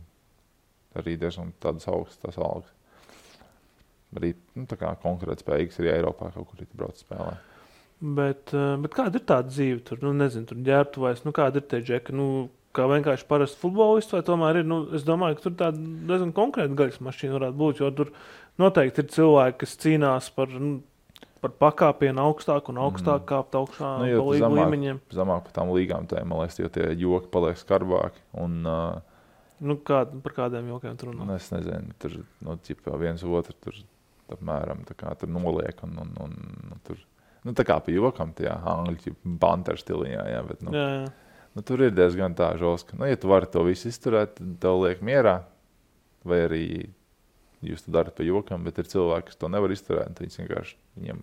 diezgan tādas augstas algas. Arī, tā kā konkrēt spējīgas arī Eiropā kaut kur brauc spēlē. Bet kāda ir tāda dzīve tur? Nezinu, tur ģērbtuvēs, kāda ir tie džeki? Kā vienkārši parasts futbolists, vai tomēr ir, es domāju, ka tur tāda diezgan konkrēta gaļas mašīna varētu būt, jo tur noteikti ir cilvēki, kas cīnās par pakāpienu augstāk un augstāk kāpt augšā pa līgu līmeņiem. Zamāk par tām līgām tēm, man liekas, jo tie joki paliek skarbāki. Un, par kādiem jokiem tur runā? Es nezinu, tur, viens otru tur apmēram tā kā tur noliek un tur, tā kā pa jokam tajā angļu banteru stiliņā, jā, bet, jā. Tur ir diezgan tā žoska. Ja tu vari to visu izturēt, tad tev liek mierā. Vai arī jūs to darat pa jokam, bet ir cilvēki, kas to nevar izturēt. Viņiem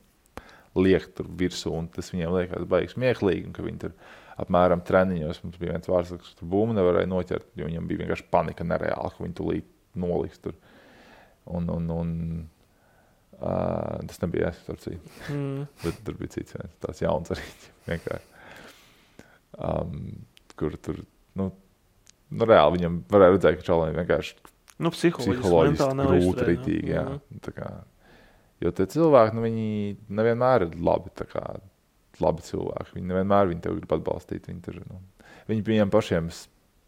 liek tur virsū, un tas viņiem liekas baigi smieklīgi. Un ka viņi tur apmēram treniņos, mums bija viens vārdsargs, kas tur bumbu nevarēja noķert, jo viņam bija vienkārši panika nereāli, ka viņi tūlīt noliks tur. Tas nebija es, bet tur bija cits viens, tāds jauns arī vienkārši. Kur tur, reāli viņam varēja redzēt, ka čalēm vienkārši psiholoģiski grūti ritīgi, jā. Tā kā, jo tie cilvēki, viņi nevienmēr ir labi cilvēki, viņi nevienmēr tev grib atbalstīt, viņi viņiem pašiem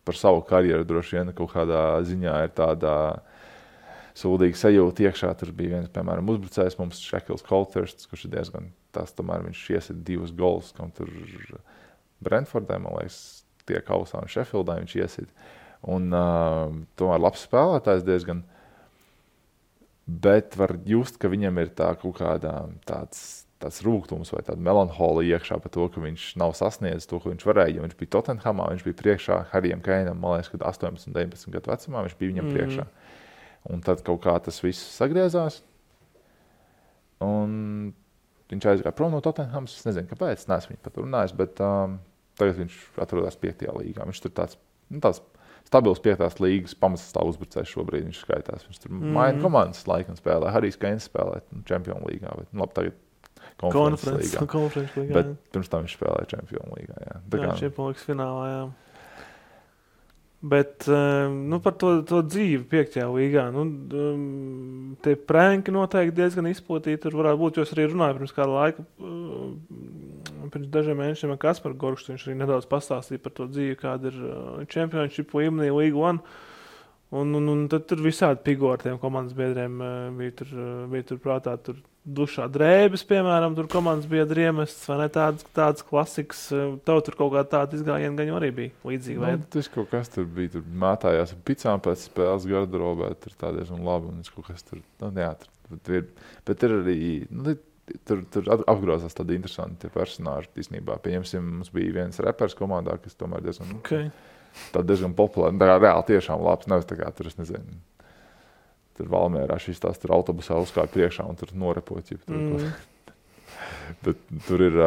par savu karjeru droši vien kaut kādā ziņā ir tādā sūdīga sajūta iekšā. Tur bija viens, piemēram, uzbrucējs mums, Shekils Colthursts, kurš ir diezgan tas, tomēr viņš iesit 2 gols, kam tur Brentfordē, man liekas, tie kausā un Sheffieldā viņš iesit. Un tomēr labs spēlētājs diezgan. Bet var just, ka viņam ir tā kaut kādā tāds rūgtums vai tāda melanholija iekšā par to, ka viņš nav sasniedzis to, ko viņš varēja. Ja viņš bija Tottenhamā, viņš bija priekšā Harijam Keinam, man liekas, kad 18, 19 gadu vecumā viņš bija viņam priekšā. Un tad kaut kā tas viss sagriezās. Un viņš aizgāja prom no Tottenhams, es nezinu, kāpēc, neesmu viņu pat runājis, bet tagad viņš atrodas 5. līgā. Viņš tur tāds stabils 5. līgas pamatsastāv uzbrucējs šobrīd viņš skaitās. Viņš tur maina komandas laikam spēlē. Harijs Keins spēlē Champions līgā, bet labi, tagad konferences līgā. Bet pirms tam viņš spēlēja Champions līgā, jā. Champions līgas finālā, jā. Bet par to dzīvi 5. līgā, tie pranki noteikti diezgan izplatīti. Tur varētu būt, jo es arī runāju pirms kāda laika, pirms dažiem mēnešiem ar Kasparu Gorkštu, viņš arī nedaudz pastāstīja par to dzīvi, kāda ir Championship līmenī, Līga 1. Un tad tur visādi figūri tiem komandas biedriem bija tur prātā. Tur dušā drēbes, piemēram, tur komandas biedri iemests, vai ne tādas klasikas. Tev tur kaut kā tāda izgājiena gan arī bija līdzīga. Tas kaut kas tur bija, tur mētājās ar picām pēc spēles garderobē, tur tā diezgan labi, un kaut kas tur, tur ir, bet ir arī, tur apgrozās tādi interesanti personāži, īstenībā. Pieņemsim, mums bija viens repers komandā, kas tomēr diezgan... Okay. Tā diezgan populāra. Tā kā reāli tiešām labs. Nevis tā kā tur, es nezinu, tur Valmierā šis tās tur autobusā uzkāja priekšā un tur norepoķi. Bet tur ir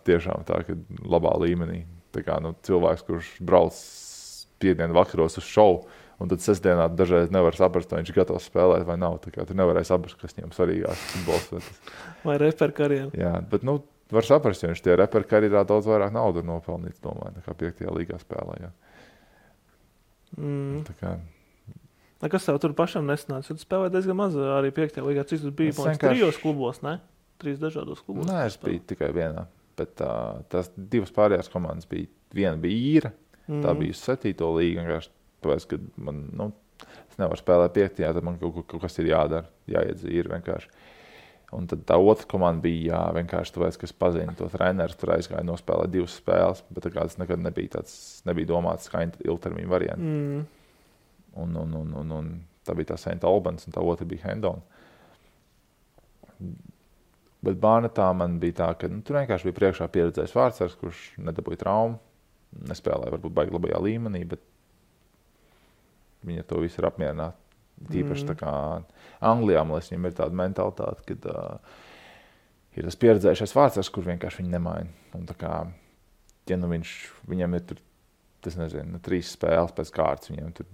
tiešām tā, ka labā līmenī. Tā kā cilvēks, kurš brauc piekdienu vakaros uz šovu, un tad sestdienā dažreiz nevar saprast, vai viņš ir gatavs spēlēt vai nav. Tā kā tur nevarēja saprast, kas viņam svarīgās futbols. Vai reper karjeru. Jā, bet var saprast, jo viņš tie reper karjerā daudz vairāk naudu ir nopelnīts, domāju, nekā 5. līgā spēlē. Kas tev tur pašam nesanāca? Tu spēlēji diezgan maz arī 5. līgā. Cik tu biji? 3 klubos, ne? 3 dažādos klubos. Nē, es biju tikai vienā. Bet tās 2 pārējās komandas bija. Viena bija īra, tā bija 7. līga. Vienkārši tāpēc, ka man, es nevaru spēlēt 5. tad man kaut kas ir jādara. Jāiet zīri vienkārši. Un tad tā otra komanda bija vienkārši tāpēc, ka es pazinu to treneru, tur aizgāju nospēlēt 2 spēles, bet tā kā tas nekad nebija domāts kā ilgtermiņa varianti. Un tā bija tā St. Albans un tā otra bija Hendon. Bet Bārnetā man bija tā, ka tur vienkārši bija priekšā pieredzējis vārdsargs, kurš nedabūja traumu, nespēlēja varbūt baigi labajā līmenī, bet viņi ar to visu ir apmierināti. Tīpaši tā kā Anglijā, man liekas, viņam ir tāda mentalitāte, kad ir tas pieredzējušais vārdsargs, kur vienkārši viņi nemaina. Un tā kā, ja viņam ir tur, tas nezinu, 3 spēles pēc kārtas, viņam tur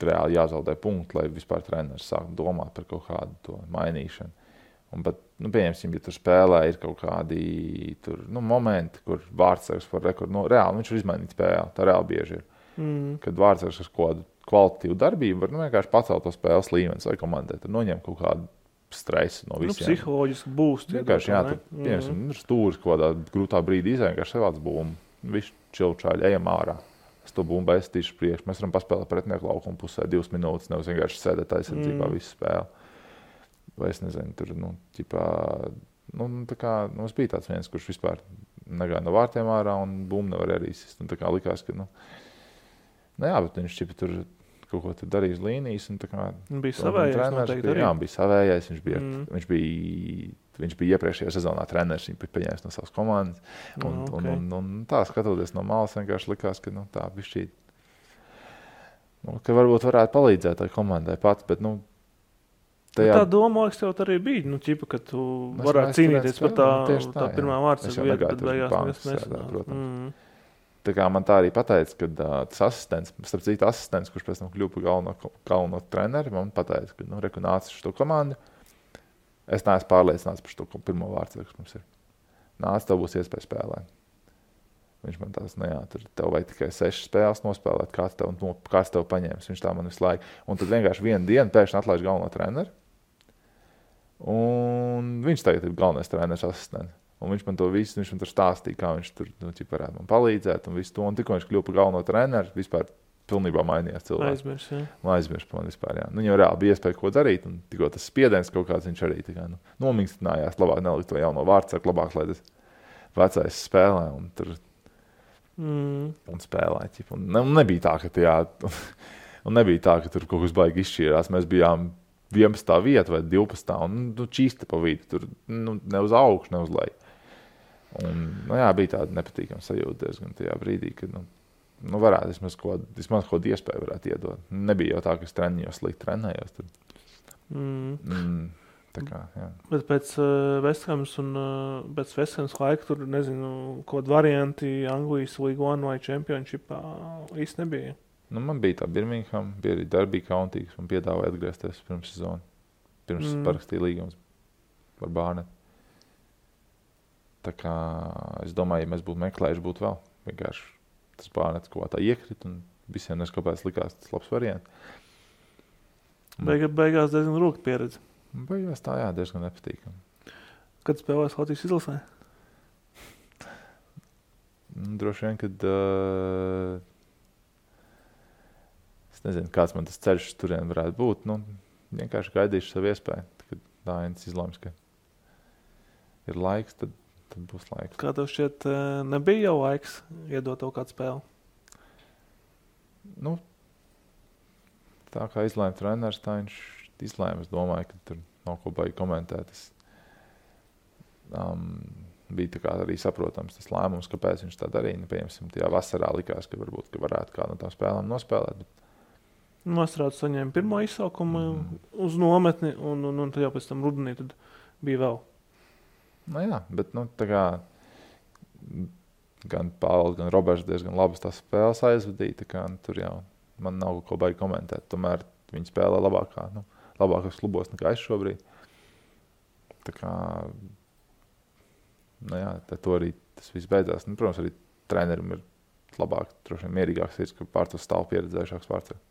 reāli jāzaudē punktu, lai vispār treneris sāktu domāt par kaut kādu to mainīšanu. Un pat, pieņemsim, ja tur spēlē ir kaut kādi tur, momenti, kur vārdsargs var rekordu, reāli viņš var izmainīt spēli, tā reāli bieži ir. Kad vārdsargs ar kādu kvalitatīvu darbību var vienkārši pacelt to spēles līmeni vai komandai. Tur noņem kaut kādu stresu no visiem. Psiholoģiski būst. Vienkārši, piemēram, stūris kaut kādā grūtā brīdī vienkārši savāds bumbu. Viss čilčāļi, ejam ārā. Es to bumbu aizstīšu priekš. Mēs varam paspēlēt pretinieku laukumu pusē 2 minūtes, nevis vienkārši sēdēt aizsardzībā visu spēli. Vai es nezinu, tur, tā kā, mums bija tāds viens, kurš vispār negāja no vārtiem ārā un bumbu nevar arī izsist. Un tā kā likās, ka, bet viņš tur kaut ko darīja uz līnijas. Un tā kā bija savējais noteikti arī. Jā, bija savējais. Viņš bija iepriekšējā sezonā treneris, viņš bija paņēmis no savas komandas. Un tā, skatoties no malas, vienkārši likās, ka tā bišķīt, ka varbūt varētu palīdzēt tai komandai pats, bet tā doma, liekas, tev arī bija, ka tu varētu cīnīties par tā pirmā vārdsarga vietu, bet beigās nesanāca. Tā kā man tā arī pateica, ka tas asistents, kurš pēc tam kļuva par galveno treneri, man pateica, ka reku nāca šo komandu. Es neesmu pārliecināts par šo pirmo vārdsargu, kas mums ir. Nāc, tev būs iespēja spēlēt. Viņš man tās, tur tev vajag tikai 6 spēles nospēlēt, kāds tev paņēmis. Viņš tā man visu laiku. Un tad vienkārši vienu dienu pēkšņi atlaiž galveno treneri. Un viņš tagad ir galvenais treneris asistents. Un viņš man to visu, viņš man tur stāstīja, kā viņš tur varētu man palīdzēt un visu to. Un tikko viņš kļuva par galveno treneri, vispār pilnībā mainījās cilvēks. Aizmirs par man vispār, jā. Viņam reāli bija iespēja ko darīt, un tikko tas spiediens kaut kāds viņš arī nomingstinājās, labāk nelikt to jauno vārdsargu, labāk, lai tas vecais spēlē un tur un spēlē. Un nebija tā, ka tur kaut kas baigi izšķīrās. Mēs bijām 11. vieta vai 12. un čīsta pa vidu, tur ne uz augšu, ne uz leju. Un, bija tāda nepatīkama sajūta diezgan tajā brīdī, kad, varētu vismaz kaut iespēju varētu iedot. Nebija jau tā, ka es slikti trenējos. Tā kā, jā. Bet pēc Vesthams un pēc Vesthams laika tur, nezinu, kaut varianti Anglijas League One vai Championshipā īsti nebija. Man bija tā Birmingham, bija arī Derby County, kas man piedāvāja atgriezties pirms sezonu. Pirms parakstīja līgums par Bārnetu. Tā kā es domāju, ja mēs būtu meklējuši, būtu vēl. Vienkārši tas Bārnets kaut kā tā iekrit un visiem neskapēc likās tas labs variants. Beigās diezgan rūkta pieredze. Beigās tā, jā, diezgan nepatīkami. Kad spēlēs Latvijas izlasē? Droši vien, kad... Es nezinu, kāds man tas ceļš turien varētu būt. Nu, vienkārši gaidīšu savu iespēju. Kad Dainis izlems, ka ir laiks, tad būs laiks. Kā tev šķiet, nebija jau laiks iedot tev kādu spēli? Nu, tā kā izlēma treneris, tā viņš izlēma. Es domāju, ka tur nav ko baigi komentēt. Bija tā kā arī saprotams tas lēmums, kāpēc viņš tā darīja. Pieņemsim, tajā vasarā likās, ka varbūt ka varētu kādu no tām spēlēm nospēlēt. Nostrādāt saņēma pirmo izsaukumu uz nometni, un tad jau pēc tam rudenī tad bija vēl. Nu jā, bet tā kā gan Pāvils, gan Roberts diezgan labas tās spēles aizvadīja, tā kā tur jau man nav ko baigi komentēt. Tomēr viņi spēlē labākos klubos nekā es šobrīd. Tā kā to arī tas viss beidzās. Protams, arī trenerim ir labāk, droši vien mierīgāks ir, ka pār to stāv pieredzējušāks pārcēl.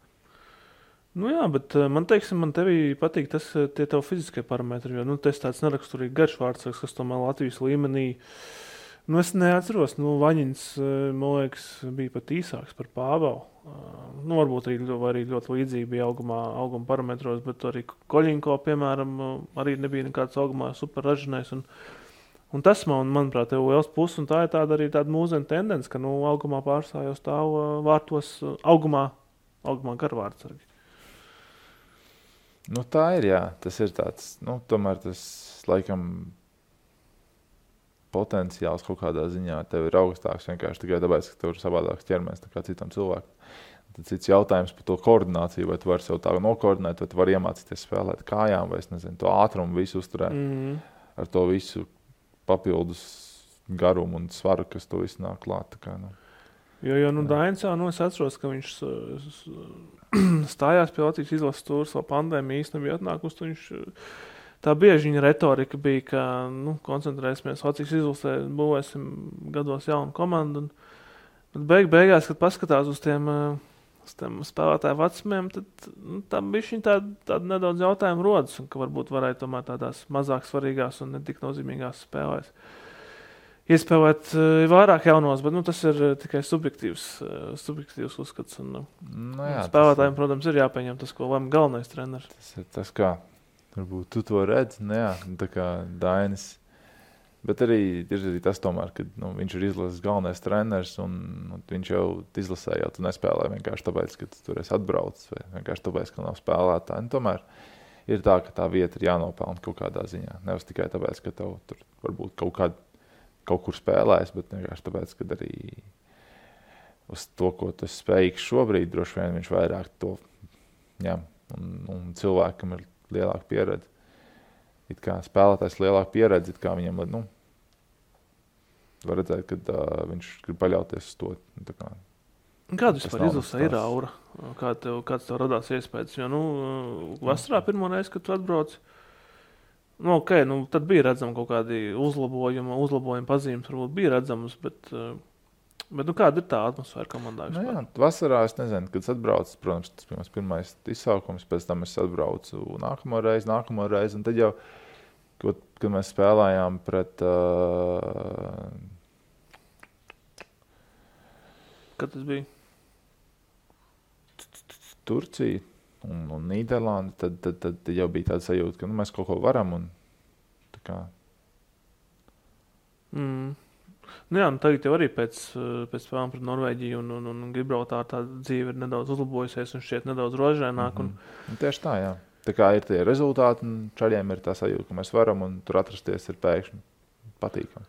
Jā, bet man tevī patīk tie tev fiziskie parametri, jo, tas tāds neraksturīgi garš vārdsargs, kas tomēr Latvijas līmenī, es neatceros, Vaņins, man liekas, bija pat īsāks par Pāvelu. Varbūt arī ļoti līdzīgi bija auguma parametros, bet arī Koļinko, piemēram, arī nebija nekāds augumā super ražinājs, un tas manuprāt, tev liels puses, un tā ir arī tāda mūsdienu tendence, ka, augumā pārstāv jau stāv vārtos augumā garvārdsargi. Tā ir, jā. Tas ir tāds, tomēr tas, laikam, potenciāls kaut kādā ziņā tev ir augstāks vienkārši tikai tāpēc, ka tev ir savādāks ķermenis nekā citam cilvēkam. Tad cits jautājums par to koordināciju, vai tu vari sev tā nokoordinēt, vai tu vari iemācīties spēlēt kājām, vai es nezinu, to ātrumu visu uzturēt ar to visu papildus garumu un svaru, kas to visu nāk klāt. Tā kā, Jo Dainis jau, es atceros, ka viņš stājās pie Latvijas izlases tūras, vēl pandēmija īsti nebija atnākusi. Viņš, tā bieži viņa retorika bija, ka koncentrēsimies Latvijas izlasē, būvēsim gados jaunu komandu. Bet beigās, kad paskatās uz tiem spēlētāju vecumiem, tad tam bišķiņ tāda nedaudz jautājumu rodas, un ka varbūt varētu tomēr tādās mazāk svarīgās un netik nozīmīgās spēlēs iespēlēt vairāk jaunos, bet tas ir tikai subjektīvs uzskats. Spēlētājiem, protams, ir jāpieņem tas, ko lem galvenais treneris. Tas ir tas, kā varbūt tu to redzi, tā kā Dainis. Bet arī ir tas tomēr, ka viņš ir izlases galvenais treneris, un viņš jau izlasē, jau tu nespēlē vienkārši tāpēc, ka tu tur esi atbraucis, vai vienkārši tāpēc, ka nav spēlētāji. Tomēr ir tā, ka tā vieta ir jānopelna kaut kādā ziņā. Nevis tikai tāpēc, ka tev tur varbūt kaut kur spēlēs, bet vienkārši tāpēc, ka arī uz to, ko tu spējīgs šobrīd, droši vien viņš vairāk to ņem. Un cilvēkam ir lielāka pieredze. It kā spēlētājs lielāka pieredze, it kā viņam, var redzēt, ka viņš grib paļauties uz to. Kāda vispār izlasē ir aura? Kāds tev radās iespējas? Jo, vasarā pirmo reizi, kad tu atbrauc, tad bija redzama kaut kādi uzlabojumi pazīmes, varbūt bija redzamas, bet kāda ir tā atmosfēra komandā? Jā, vasarā es nezinu, kad es atbraucu, protams, tas bija mans pirmais izsaukums, pēc tam es atbraucu nākamo reizi, un tad jau, kad mēs spēlējām pret Kad tas bija? Turciju un Nīderlandi, tad jau bija tāda sajūta, ka mēs kaut ko varam. Un, tā kā. Tagad jau arī pēc spēlēm pret Norvēģiju un Gibraltāru tā dzīve ir nedaudz uzlabojusies un šķiet nedaudz rožaināk. Tieši tā, jā. Tā kā ir tie rezultāti, un čaļiem ir tā sajūta, ka mēs varam, un tur atrasties ir pēkšņi patīkami.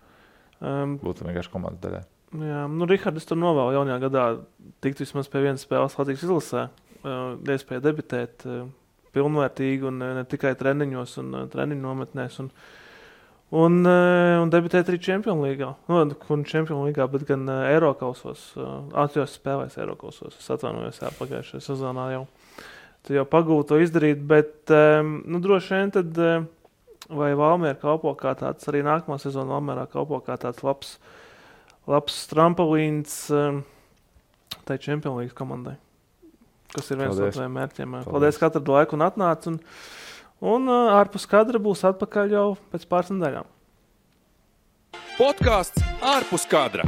Būtu vienkārši komandas daļai. Jā, Rihard, es tur novēlu jaunajā gadā tikt vismaz pie vienas spēles Latvijas izlasē. Iespēja debitēt pilnvērtīgi un ne tikai treniņos un treniņu nometnēs un debitēt arī Champions Līgā. Champions Līgā, bet gan Eirokausos, atjos spēlēs Eirokausos. Es atvainojos pagājušajā sezonā jau. Tu jau pagūti to izdarīt, bet droši vien tad vai Valmiera kalpo kā tāds, arī nākamā sezona Valmierā kalpo kā tāds labs trampolins tai Champions Līgas komandai, kas ir viens no taviem mērķiem. Paldies, ka atradi laiku un atnāc. Un ārpus kadra būs atpakaļ jau pēc pāris nedēļām. Podcasts ārpus kadra.